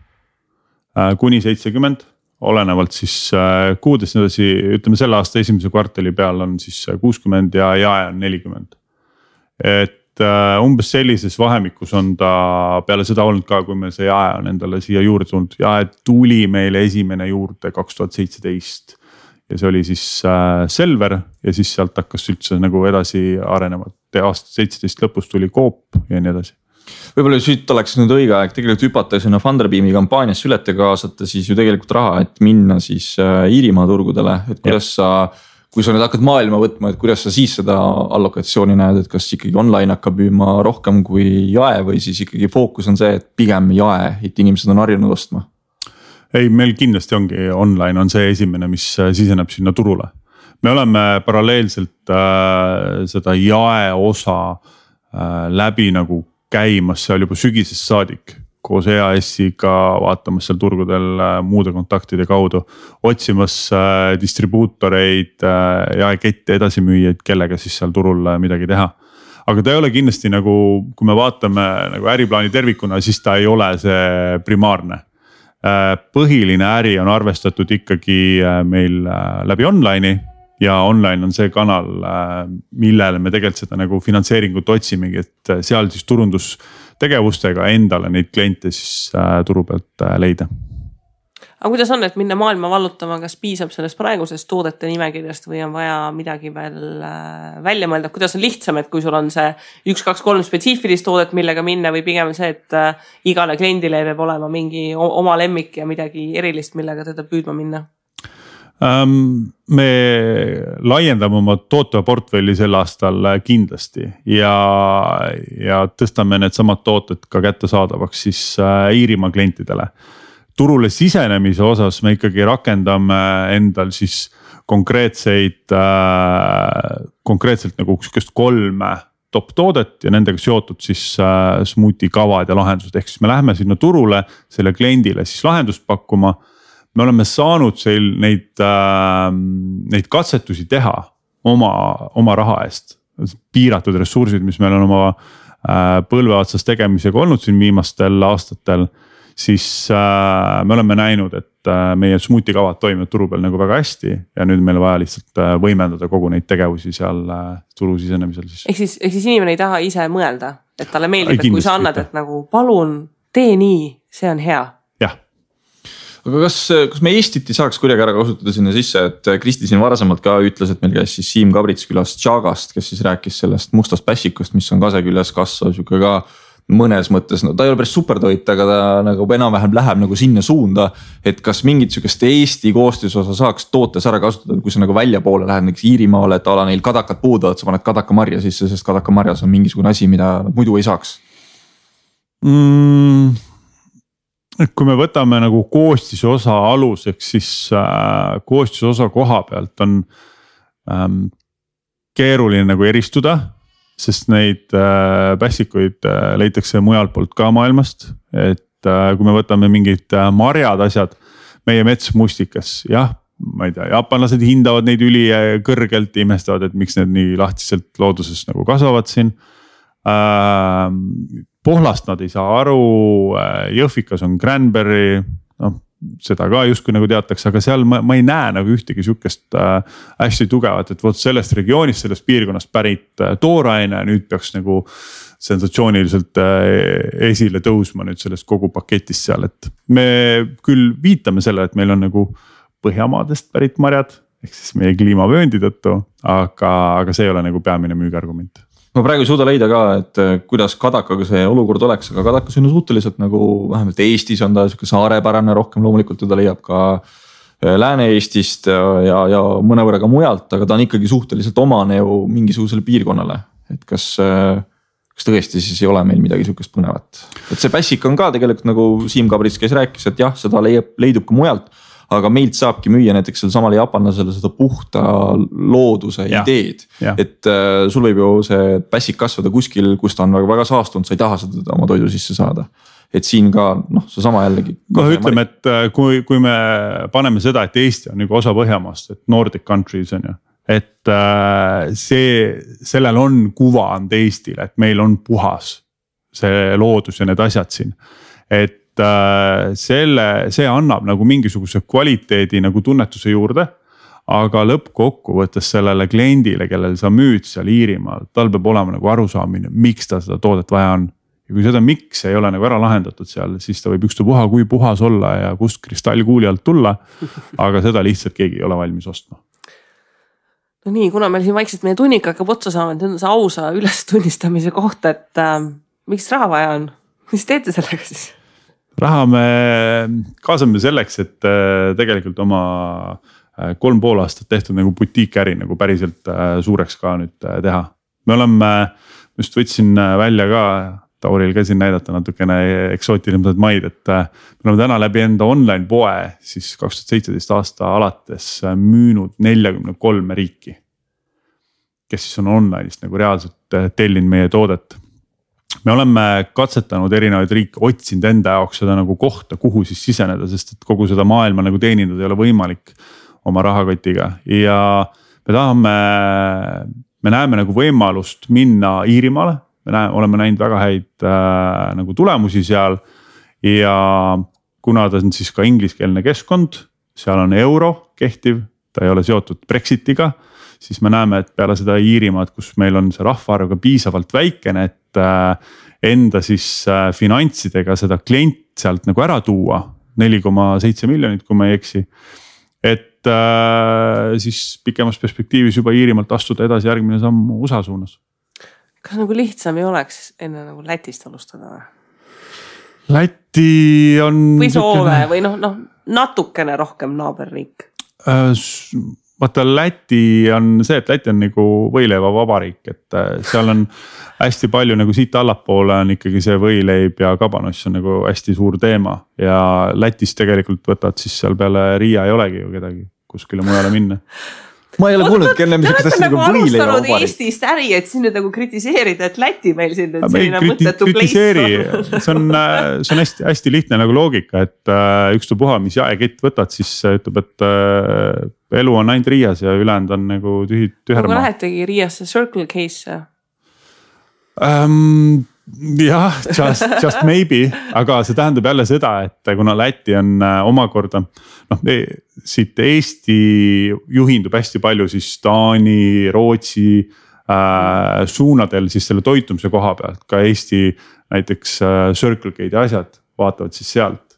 kuni 70, olenevalt siis kuudest edasi, ütleme selle aasta esimese kvartali peal on siis 60 ja jae on 40. Et umbes sellises vahemikus on ta peale seda olnud ka, kui meil see jae on endale siia juurde tulnud. Jae tuli meile esimene juurde 2017 ja see oli siis Selver ja siis sealt hakkas üldse nagu edasi arenema. Aasta 17 lõpus tuli Coop ja nii edasi.
Võib-olla siit oleks nüüd õige aeg tegelikult hüpata sinna Funderbeami kampaanias ülete kaasata siis ju tegelikult raha, et minna siis Iirimaa turgudele, et kuidas kui sa nüüd hakkad maailma võtma, et kuidas sa siis seda allokatsiooni näed, et kas ikkagi online hakkab müüma rohkem kui jae või siis ikkagi fookus on see, et pigem jae, et inimesed on harjunud ostma?
Ei, meil kindlasti ongi online on see esimene, mis siseneb sinna turule. Me oleme paralleelselt seda jae osa läbi nagu käimas seal juba sügisest saadik. Koos EAS-iga vaatamas seal turgudel muude kontaktide kaudu, otsimas distribuutoreid ja kette edasimüüjaid, kellega siis seal turul midagi teha. Aga ta ei ole kindlasti nagu, kui me vaatame nagu äriplaani tervikuna, siis ta ei ole see primaarne. Põhiline äri on arvestatud ikkagi meil läbi online'i ja online on see kanal, millele me tegelikult seda nagu finantseeringut otsimegi, et seal siis turundustegevustega endale neid kliente siis turu pealt leida.
Aga kuidas on, et minna maailma vallutama, kas piisab sellest praegusest toodete nimekirjast või on vaja midagi veel välja mõelda? Kuidas on lihtsam, et kui sul on see 1, 2, 3 spetsiifilist toodet, millega minna või pigem see, et igale kliendile peab olema mingi oma lemmik ja midagi erilist, millega teda püüdma minna?
Me laiendame oma tootva portfelli sel aastal kindlasti ja tõstame need samad tooted ka kättesaadavaks siis Iirimaa klientidele. Turule sisenemise osas me ikkagi rakendame endal siis konkreetselt nagu 3 top toodet ja nendega seotud siis smoothie kavad ja lahendused. Ehk siis me läheme sinna turule selle kliendile siis lahendust pakkuma. Me oleme saanud neid katsetusi teha oma raha eest. Piiratud ressursid, mis meil on oma põlve otsas tegemisega olnud siin viimastel aastatel. Siis me oleme näinud, et meie smoothie kavad toimivad turu peal nagu väga hästi ja nüüd meil vaja lihtsalt võimendada kogu neid tegevusi seal turu sisenemisel.
Ehk siis inimene ei taha ise mõelda, et talle meeldib, et kui sa annad, et nagu palun tee nii, see on hea.
Aga kas me Eestit ei saaks kuidagi ära kasutada sinna sisse, et Kristi siin varasemalt ka ütles, et meil käis siis Siim Kabrits külas Tšagast, kes siis rääkis sellest mustast pässikust, mis on kase küljes kasvav, siuke ka mõnes mõttes, no ta ei ole päris supertoit, aga ta nagu enam-vähem läheb nagu sinna suunda. Et kas mingit sükest Eesti koostisosa saaks tootes ära kasutada, kui sa nagu välja poole lähed näiteks Iirimaale, et ala neil kadakad puuduvad, sa paned kadakamarja sisse, sest kadakamarjas on mingisugune asi, mida muidu ei saaks.
Kui me võtame nagu koostisosa aluseks, siis koostisosa koha pealt on keeruline nagu eristuda. Sest neid pässikuid leitakse mujalt poolt ka maailmast, et kui me võtame mingid marjad asjad, meie metsmustikas, jah, ma ei tea, jaapanlased hindavad neid üli kõrgelt, imestavad, et miks need nii lahtiselt looduses nagu kasvavad siin. Pohlast nad ei saa aru, Jõhvikas on cranberry, noh, seda ka justkui nagu teatakse, aga seal ma ei näe nagu ühtegi sükest hästi tugevat, et vot sellest regioonist, sellest piirkonnast pärit tooraine nüüd peaks nagu sensatsiooniliselt esile tõusma nüüd sellest kogu paketist seal, et me küll viitame selle, et meil on nagu Põhjamaadest pärit marjad, ehk siis meie kliimavööndi tõttu, aga see ei ole nagu peamine müügiargument.
Ma praegu ei suuda leida ka, et kuidas kadakaga see olukord oleks, aga kadakas on suhteliselt nagu vähemalt Eestis on ta siuke saarepärane rohkem, loomulikult teda leiab ka Lääne-Eestist ja mõnevõrra ka mujalt, aga ta on ikkagi suhteliselt omane ju mingisugusele piirkonnale. Et kas tõesti siis ei ole meil midagi sihukest põnevat. Et see pässik on ka tegelikult nagu Siim Kabrits käis rääkis, et jah, seda leidub ka mujalt. Aga meilt saabki müüa näiteks seal samale jaapanlasele seda puhta looduse ideed. Et sul võib ju see pässik kasvada kuskil, kus ta on väga saastunud, sa ei taha seda oma toidu sisse saada. Et siin ka, noh, see sama jällegi.
Ütleme, et kui me paneme seda, et Eesti on nagu osa Põhjamaast, et Nordic countries on ju. Et sellel on kuvand Eestile, et meil on puhas see loodus ja need asjad siin. Et see annab nagu mingisuguse kvaliteedi nagu tunnetuse juurde, aga lõppkokkuvõttes sellele kliendile, kellel sa müüd seal Iirimaal, tal peab olema nagu arusaamine, miks ta seda toodet vaja on. Ja kui seda miks ei ole nagu ära lahendatud seal, siis ta võib ükstapuha kui puhas olla ja kust kristallkuuli alt tulla, aga seda lihtsalt keegi ei ole valmis ostma.
No nii, kuna meil siin vaikselt meie tunnik hakkab otsa saama, et see ausa ülestunnistamise kohta, et miks raha vaja on? Mis teete sellega siis?
Raha me kaasame selleks, et tegelikult oma 3,5 aastat tehtud nagu butiikäri nagu päriselt suureks ka nüüd teha. Me oleme, just võtsin välja ka, Tauril käisin näidata natukene eksootilised maid, et me oleme täna läbi enda online poe siis 2017 aasta alates müünud 43 riiki, kes siis on online'ist nagu reaalselt tellinud meie toodet. Me oleme katsetanud erinevaid riike, otsinud enda jaoks seda nagu kohta, kuhu siis siseneda, sest et kogu seda maailma nagu teenindada ei ole võimalik oma rahakotiga. Ja me näeme nagu võimalust minna Iirimaale, oleme näinud väga häid nagu tulemusi seal ja kuna ta on siis ka ingliskeelne keskkond, seal on euro kehtiv, ta ei ole seotud Brexitiga, siis me näeme, et peale seda Iirimaad, kus meil on see rahvaarv ka piisavalt väikene, et enda siis finantsidega seda klient sealt nagu ära tuua, 4,7 miljonit, kui ma ei eksi. Et siis pikemas perspektiivis juba Iirimaalt astuda edasi järgmine samm USA suunas.
Kas nagu lihtsam ei oleks enne nagu Lätist alustada?
Läti on...
Või Soome või natukene rohkem naaberriik?
Vaata Läti on see, et Läti on nagu võileiva vabariik, et seal on hästi palju nagu siit allapoole on ikkagi see võileib ja kabanoss on nagu hästi suur teema. Ja Lätis tegelikult võtad siis seal peale Riia ei olegi ju kedagi kuskile mujale minna.
Ma ei ole kuulnud, kelle mis asja nagu võileiva vabariik.
Eestist äri, et siin nüüd nagu kritiseerida, et Läti meil siin nüüd selline mõttetu place.
See on hästi lihtne nagu loogika, et ükstapuha, mis jaekett võtad, siis ütleb, et elu on ainult Riias ja ülejäänud on nagu tühermaa.
Aga lähetegi Riiasse Circle Case?
Jah, just maybe, aga see tähendab jälle seda, et kuna Läti on omakorda, siit Eesti juhindub hästi palju siis Taani, Rootsi suunadel siis selle toitumise koha pealt, ka Eesti näiteks Circle K'd asjad vaatavad siis sealt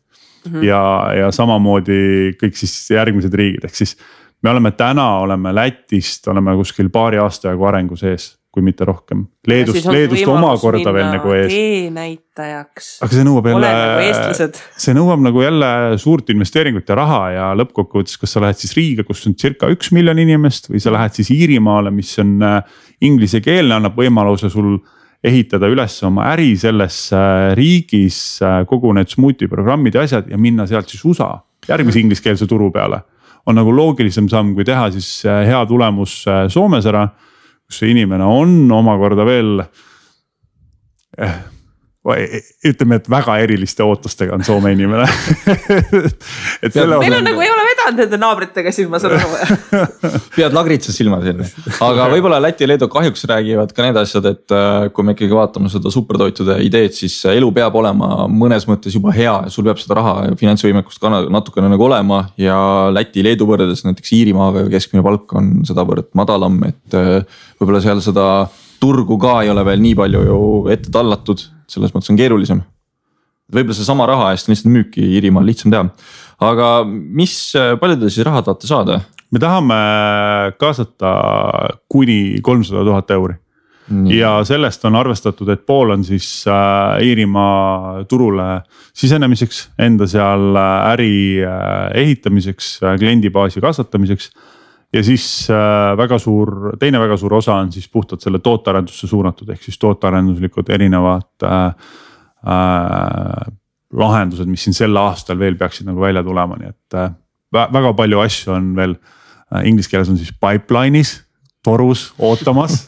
ja samamoodi kõik siis järgmised riigid, ehk siis me oleme Lätist, oleme kuskil paari aasta jagu arengu sees. kui mitte rohkem. Leedust omakorda veel nagu ees.
teenäitajaks.
aga see nõuab
nagu
nagu jälle suurt investeeringut ja raha ja lõppkokkuvõttes, kas sa lähed siis Riiga, kus on circa 1 miljon inimest või sa lähed siis Iirimaale, mis on inglisekeelne, annab võimaluse sul ehitada üles oma äri selles riigis, kogu need smuuti programmid ja asjad ja minna sealt siis USA järgmise ingliskeelse turu peale. On nagu loogilisem samm, kui teha siis hea tulemus Soomes ära, kus see inimene on omakorda veel, ütleme, et väga eriliste ootustega on Soome inimene.
Meil on nagu ei ole vedanud nende naabritega siin, ma saan aru.
Pead lagritsa silma siin. Aga võib-olla Läti ja Leedu kahjuks räägivad ka need asjad, et kui me ikkagi vaatame seda supertoitude ideed, siis elu peab olema mõnes mõttes juba hea ja sul peab seda raha ja finantsvõimekust ka natukene nagu olema ja Läti, Leedu võrdes näiteks Iirimaaga keskmine palk on sedavõrd madalam, et võib-olla seal seda turgu ka ei ole veel nii palju ju ette tallatud, selles mõttes on keerulisem. Võib-olla see sama raha eest lihtsalt müüki Iirimaal lihtsam teha. Aga palju te siis raha tahate saada?
Me tahame kaasata kuni 300 000 euri. Nii. Ja sellest on arvestatud, et pool on siis Iirimaa turule sisenemiseks, enda seal äri ehitamiseks, kliendibaasi kasvatamiseks. Ja siis teine väga suur osa on siis puhtalt selle tootearendusse suunatud, ehk siis tootearenduslikud erinevad lahendused, mis siin sel aastal veel peaksid nagu välja tulema, nii et väga palju asju on veel, inglise keeles on siis pipeline'is, torus, ootamas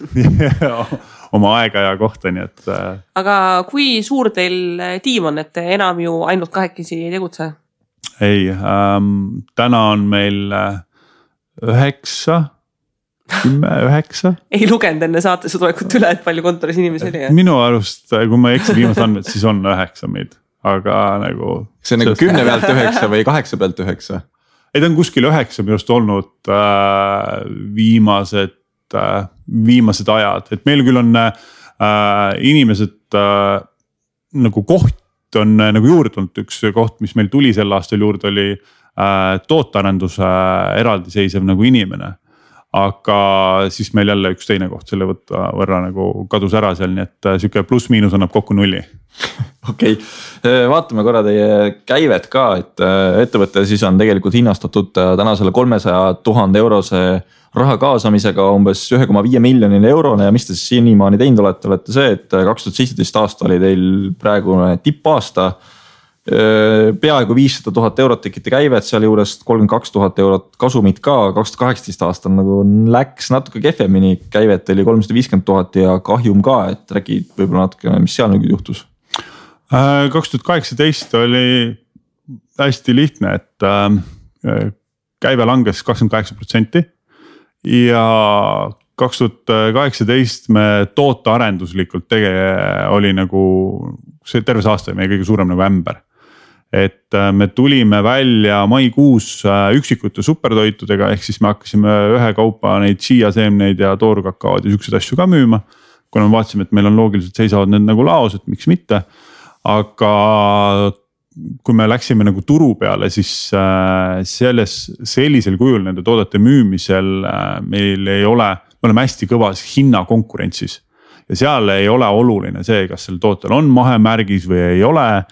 oma aega ja kohta, nii et.
Aga kui suur teil tiim on, et enam ju ainult 2 ei tegutse?
Ei, täna on meil 9.
Ei lugenud enne saatesse tulekut üle, et palju kontoris inimesi oli.
Minu arust, kui ma eksin viimased andmed, siis on 9 meid, aga nagu.
See on nagu 10 pealt 9 või 8 pealt 9?
Ei, ta on kuskil 9 minu arust olnud viimased ajad, et meil küll on inimesed nagu koht on nagu juurde tulnud, üks koht, mis meil tuli sel aastal juurde oli tootearenduse eraldiseisev nagu inimene, aga siis meil jälle üks teine koht selle võrra nagu kadus ära seal, nii et siuke pluss-miinus annab kokku 0.
Okei, vaatame korra teie käivet ka, et ettevõte siis on tegelikult hinnastatud tänasele 300 000 eurose raha kaasamisega umbes 1,5 miljonile eurone ja mis te siis senimaani teinud olete see, et 2017 aasta oli teil praegune tippaasta. Peaaegu 500 000 eurot tekite käivet, seal juures 32 000 eurot kasumit ka, 2018 aastal nagu läks natuke kehvemini, käivet oli 350 000 ja kahjum ka, et räägi võib-olla natuke, mis seal nüüd juhtus?
2018 oli hästi lihtne, et käive langes 28% ja 2018 me tootearenduslikult oli nagu, see terve aasta meie kõige suurem nagu ämber. Et me tulime välja maikuus üksikute supertoitudega, ehk siis me hakkasime ühe kaupa neid chia-seemneid ja toorkakaod ja siukseid asju ka müüma. Kuna me vaatasime, et meil on loogiliselt seisavad need nagu laos, et miks mitte. Aga kui me läksime nagu turu peale, siis sellisel kujul nende toodete müümisel meil ei ole, me oleme hästi kõvas hinnakonkurentsis. Ja seal ei ole oluline see, kas sel tootel on mahemärgis või ei ole.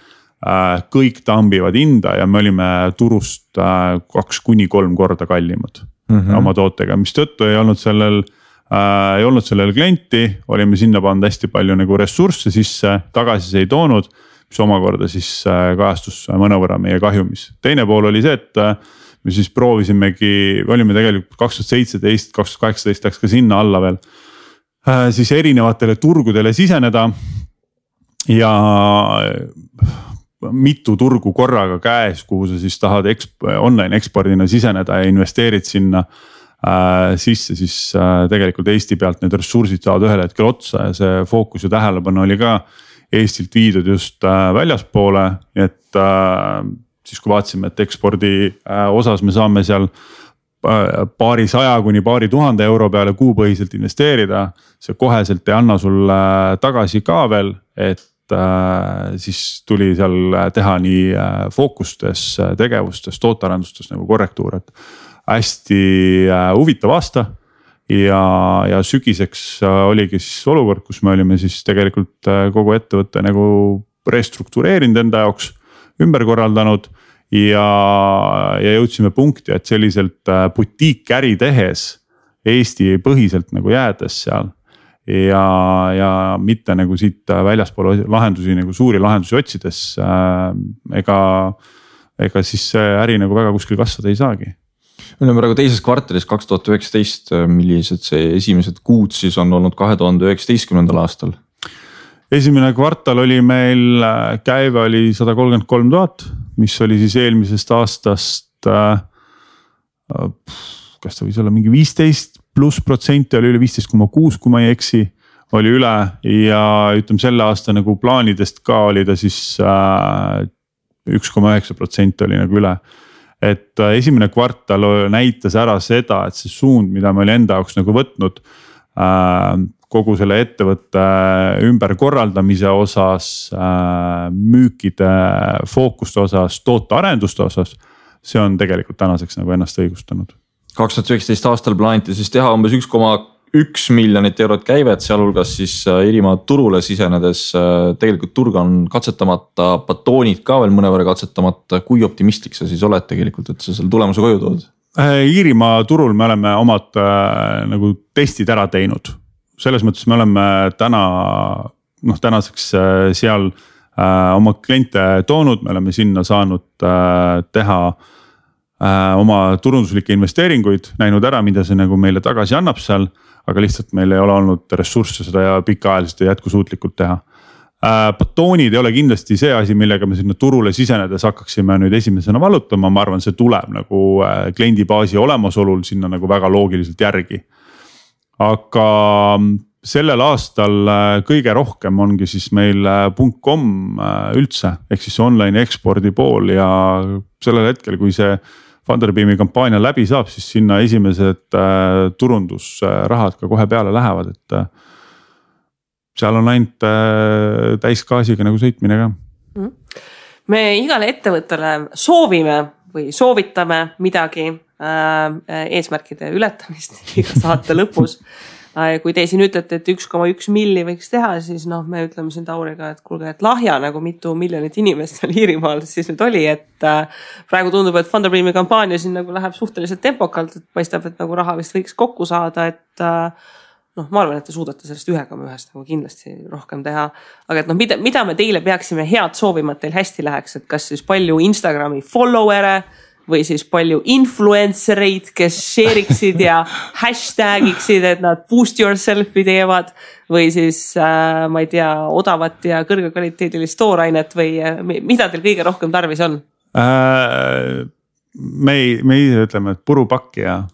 Kõik tambivad hinda ja me olime turust 2-3 korda kallimad oma tootega, mis tõttu ei olnud sellel klienti, olime sinna pannud hästi palju nagu ressursse sisse, tagasi see ei toonud, mis omakorda siis kajastus mõnevõrra meie kahjumis. Teine pool oli see, et me siis proovisimegi, olime tegelikult 2017, 2018 läks ka sinna alla veel, siis erinevatele turgudele siseneda ja mitu turgu korraga käes, kuhu sa siis tahad online ekspordina siseneda ja investeerid sinna sisse, siis tegelikult Eesti pealt need ressursid saavad ühel hetkel otsa ja see fookus ja tähelepanu oli ka Eestilt viidud just väljaspoole, et siis kui vaatasime, et ekspordi osas me saame seal paari 100 kuni paari 1000 euro peale kuupõhiselt investeerida, see koheselt ei anna sulle tagasi ka veel, et siis tuli seal teha nii fookustes, tegevustes, tootearendustes nagu korrektuur, et hästi huvitav aasta ja sügiseks oligi siis olukord, kus me olime siis tegelikult kogu ettevõtte nagu restruktureerinud enda jaoks, ümber korraldanud ja jõudsime punkti, et selliselt butiikäri tehes Eesti põhiselt nagu jäädes seal ja mitte nagu siit väljaspool lahendusi nagu suuri lahendusi otsides ega siis see äri nagu väga kuskil kasvada ei saagi.
Me oleme praegu teises kvartalis 2019, millised see esimesed kuud siis on olnud 2019. aastal?
Esimene kvartal oli meil, käive oli 133 000, mis oli siis eelmisest aastast, kas ta võis olla mingi 15+% oli üle 15,6, kui ma ei eksi, oli üle ja ütleme selle aasta nagu plaanidest ka oli ta siis 1,9% oli nagu üle. Et esimene kvartal näitas ära seda, et see suund, mida me oli enda jaoks nagu võtnud kogu selle ettevõtte ümberkorraldamise osas, müükide fookuste osas, tootearenduste osas, see on tegelikult tänaseks nagu ennast õigustanud. 2019
aastal plaaniti siis teha umbes 1,1 miljonit eurot käivet, sealhulgas siis Iirimaa turule sisenedes. Tegelikult turg on katsetamata, batoonid ka veel mõnevõrra katsetamata. Kui optimistlik sa siis oled tegelikult, et sa selle tulemuse koju tood?
Iirimaa turul me oleme omad nagu testid ära teinud. Selles mõttes me oleme tänaseks seal oma kliente toonud, me oleme sinna saanud teha oma turunduslikke investeeringuid, näinud ära, mida see nagu meile tagasi annab seal, aga lihtsalt meil ei ole olnud ressursse seda ja pikaajaliselt ja jätkusuutlikult teha. Batoonid ei ole kindlasti see asi, millega me sinna turule sisenedes hakkaksime nüüd esimesena vallutama, ma arvan, see tuleb nagu kliendibaasi olemasolul sinna nagu väga loogiliselt järgi. Aga sellel aastal kõige rohkem ongi siis meil .com üldse, ehk siis online ekspordi pool ja sellel hetkel, kui see Funderbeami kampaania läbi saab, siis sinna esimesed turundusrahad ka kohe peale lähevad, et seal on ainult täisgaasiga nagu sõitmine ka.
Me igale ettevõttele soovime või soovitame midagi eesmärkide ületamist iga saate lõpus. Kui te siin ütlete, et 1,1 milli võiks teha, siis me ütleme siin Tauriga, et kuulge, et lahja nagu mitu miljonit inimest seal Iirimaal siis nüüd oli, et praegu tundub, et Funderbeami kampaania siin nagu läheb suhteliselt tempokalt, et paistab, et nagu raha vist võiks kokku saada, et ma arvan, et te suudate sellest 1,1 nagu kindlasti rohkem teha, aga et mida me teile peaksime head soovima, et teil hästi läheks, et kas siis palju Instagrami follower'e või siis palju influencereid, kes share'iksid ja hashtagiksid, et nad boost yourself'i teevad või siis ma ei tea, odavat ja kõrgekvaliteedilist toorainet või mida teil kõige rohkem tarvis on?
Me ise ütleme, et purupakki ja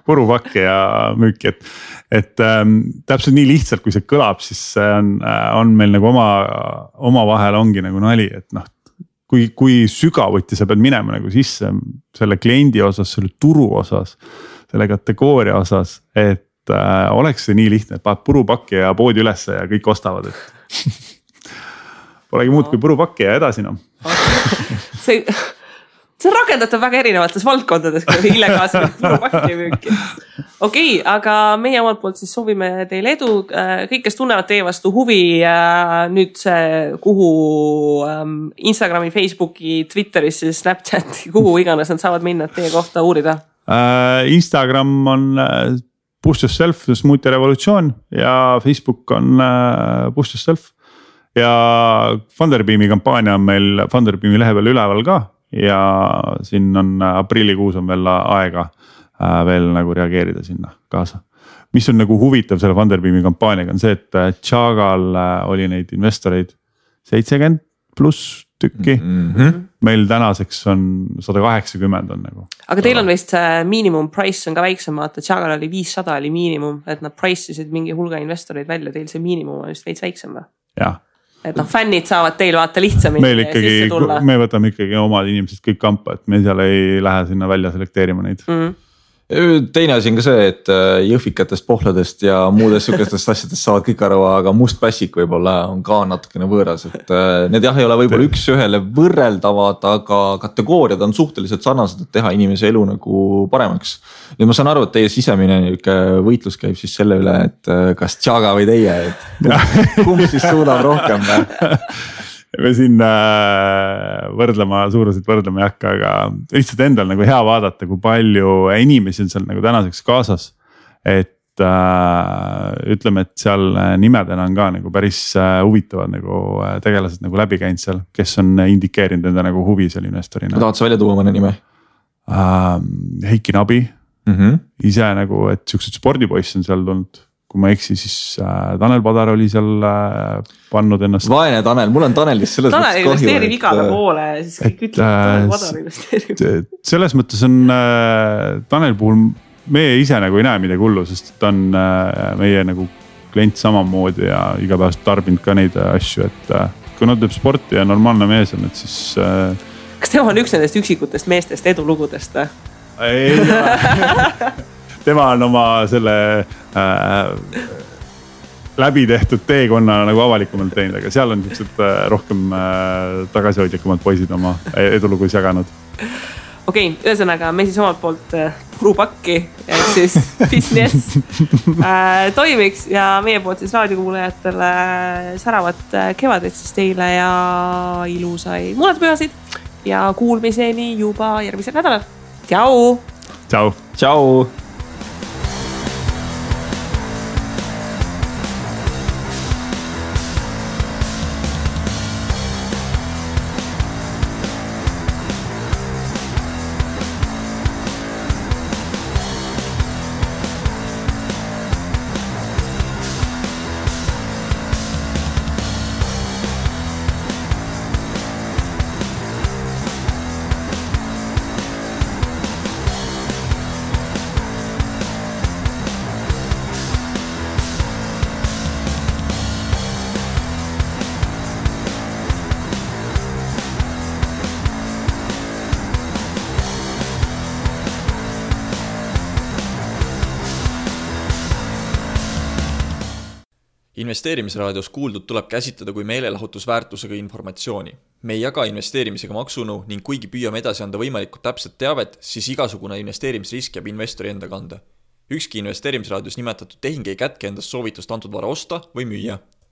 purupakki ja müüki, et täpselt nii lihtsalt, kui see kõlab, siis on meil nagu oma vahel ongi nagu nali, et kui sügavuti sa pead minema nagu sisse selle kliendi osas, selle turu osas, selle kategooria osas, et oleks see nii lihtne, et paned purupakki ja poodi ülesse ja kõik ostavad, et polegi muud kui purupakki ja edasi .
See on rakendatav väga erinevates valdkondades, kui illegaalselt purupakki müüki. Okei, aga meie omalt poolt siis soovime teile edu. Kõik, kes tunnevad teie vastu huvi, nüüd see kuhu Instagrami, Facebooki, Twitteris, Snapchati, kuhu iganes nad saavad minna teie kohta uurida?
Instagram on Boost Yourself, Smoothie Revolutsioon ja Facebook on Boost Yourself. Ja Funderbeami kampaania on meil Funderbeami lehe peal üleval ka. Ja siin on aprillikuus on veel aega veel nagu reageerida sinna kaasa. Mis on nagu huvitav selle Funderbeami kampaaniaga on see, et Chagal oli neid investoreid 70+ tükki. Meil tänaseks on 180 on nagu.
Aga teil on vist miinimum price on ka väiksem, vaata Chagal oli 500 oli miinimum, et nad price'isid mingi hulga investoreid välja, teil see miinimum on vist veits väiksem või?
Jah.
Et fännid saavad teil vaata lihtsamini sisse tulla.
Me võtame ikkagi omad inimesed kõik kampa, et me seal ei lähe sinna välja selekteerima neid.
teine asi on ka see, et jõhvikatest, pohladest ja muudest sihukestest asjadest saavad kõik aru, aga must pässik võib-olla on ka natukene võõras, et need jah, ei ole võib-olla üks ühele võrreldavad, aga kategooriad on suhteliselt sarnased, et teha inimese elu nagu paremaks. Nüüd ma saan aru, et teie sisemine võitlus käib siis selle üle, et kas Tšaga või teie, et kumb siis suudab rohkem
me siin suuruselt võrdlema ei hakka, aga lihtsalt endal nagu hea vaadata, kui palju inimesi on seal nagu tänaseks kaasas. Et ütleme, et seal nimedena on ka nagu päris huvitavad nagu tegelased nagu läbi käinud seal, kes on indikeerinud enda nagu huvi seal investorina.
Ma tahad sa välja tuua mõne nime?
Heiki Nabi, ise nagu, et siuksed spordipoiss on seal tulnud. Kui ma eksi, siis Tanel Padar oli seal pannud ennast.
Vaene Tanel, mul on Tanelist selles
Tanel investeerib igale poole, siis kõik ütleb, Tanel Padar investeerib.
Selles mõttes on Tanel puhul meie ise nagu ei näe midagi hullu, sest ta on meie nagu klient samamoodi ja igapäevast tarbinud ka neid asju, et kui nad teeb sporti ja normaalne mees on, et siis...
Kas tema on üks nendest üksikutest meestest edulugudest?
Ei tema on oma selle läbi tehtud teekonna nagu avalikumalt teinud, aga seal on niisugused rohkem tagasihoidlikumad poisid oma edulugus jaganud.
Okei, ühesõnaga me siis omalt poolt purupakki, et siis business toimiks ja meie poolt siis raadiokuulajatele säravat kevadet siis teile ja ilusai muudatuspühasid ja kuulmiseni juba järgmisel nädalal. Tšau!
Tšau!
Tšau!
Investeerimisraadios kuuldud tuleb käsitleda kui meelelahutusväärtusega informatsiooni. Me ei jaga investeerimisega maksunu ning kuigi püüame edasi anda võimalikult täpset teavet, siis igasugune investeerimisrisk jääb investori enda kanda. Ükski investeerimisraadios nimetatud tehing ei kätke endast soovitust antud vara osta või müüa.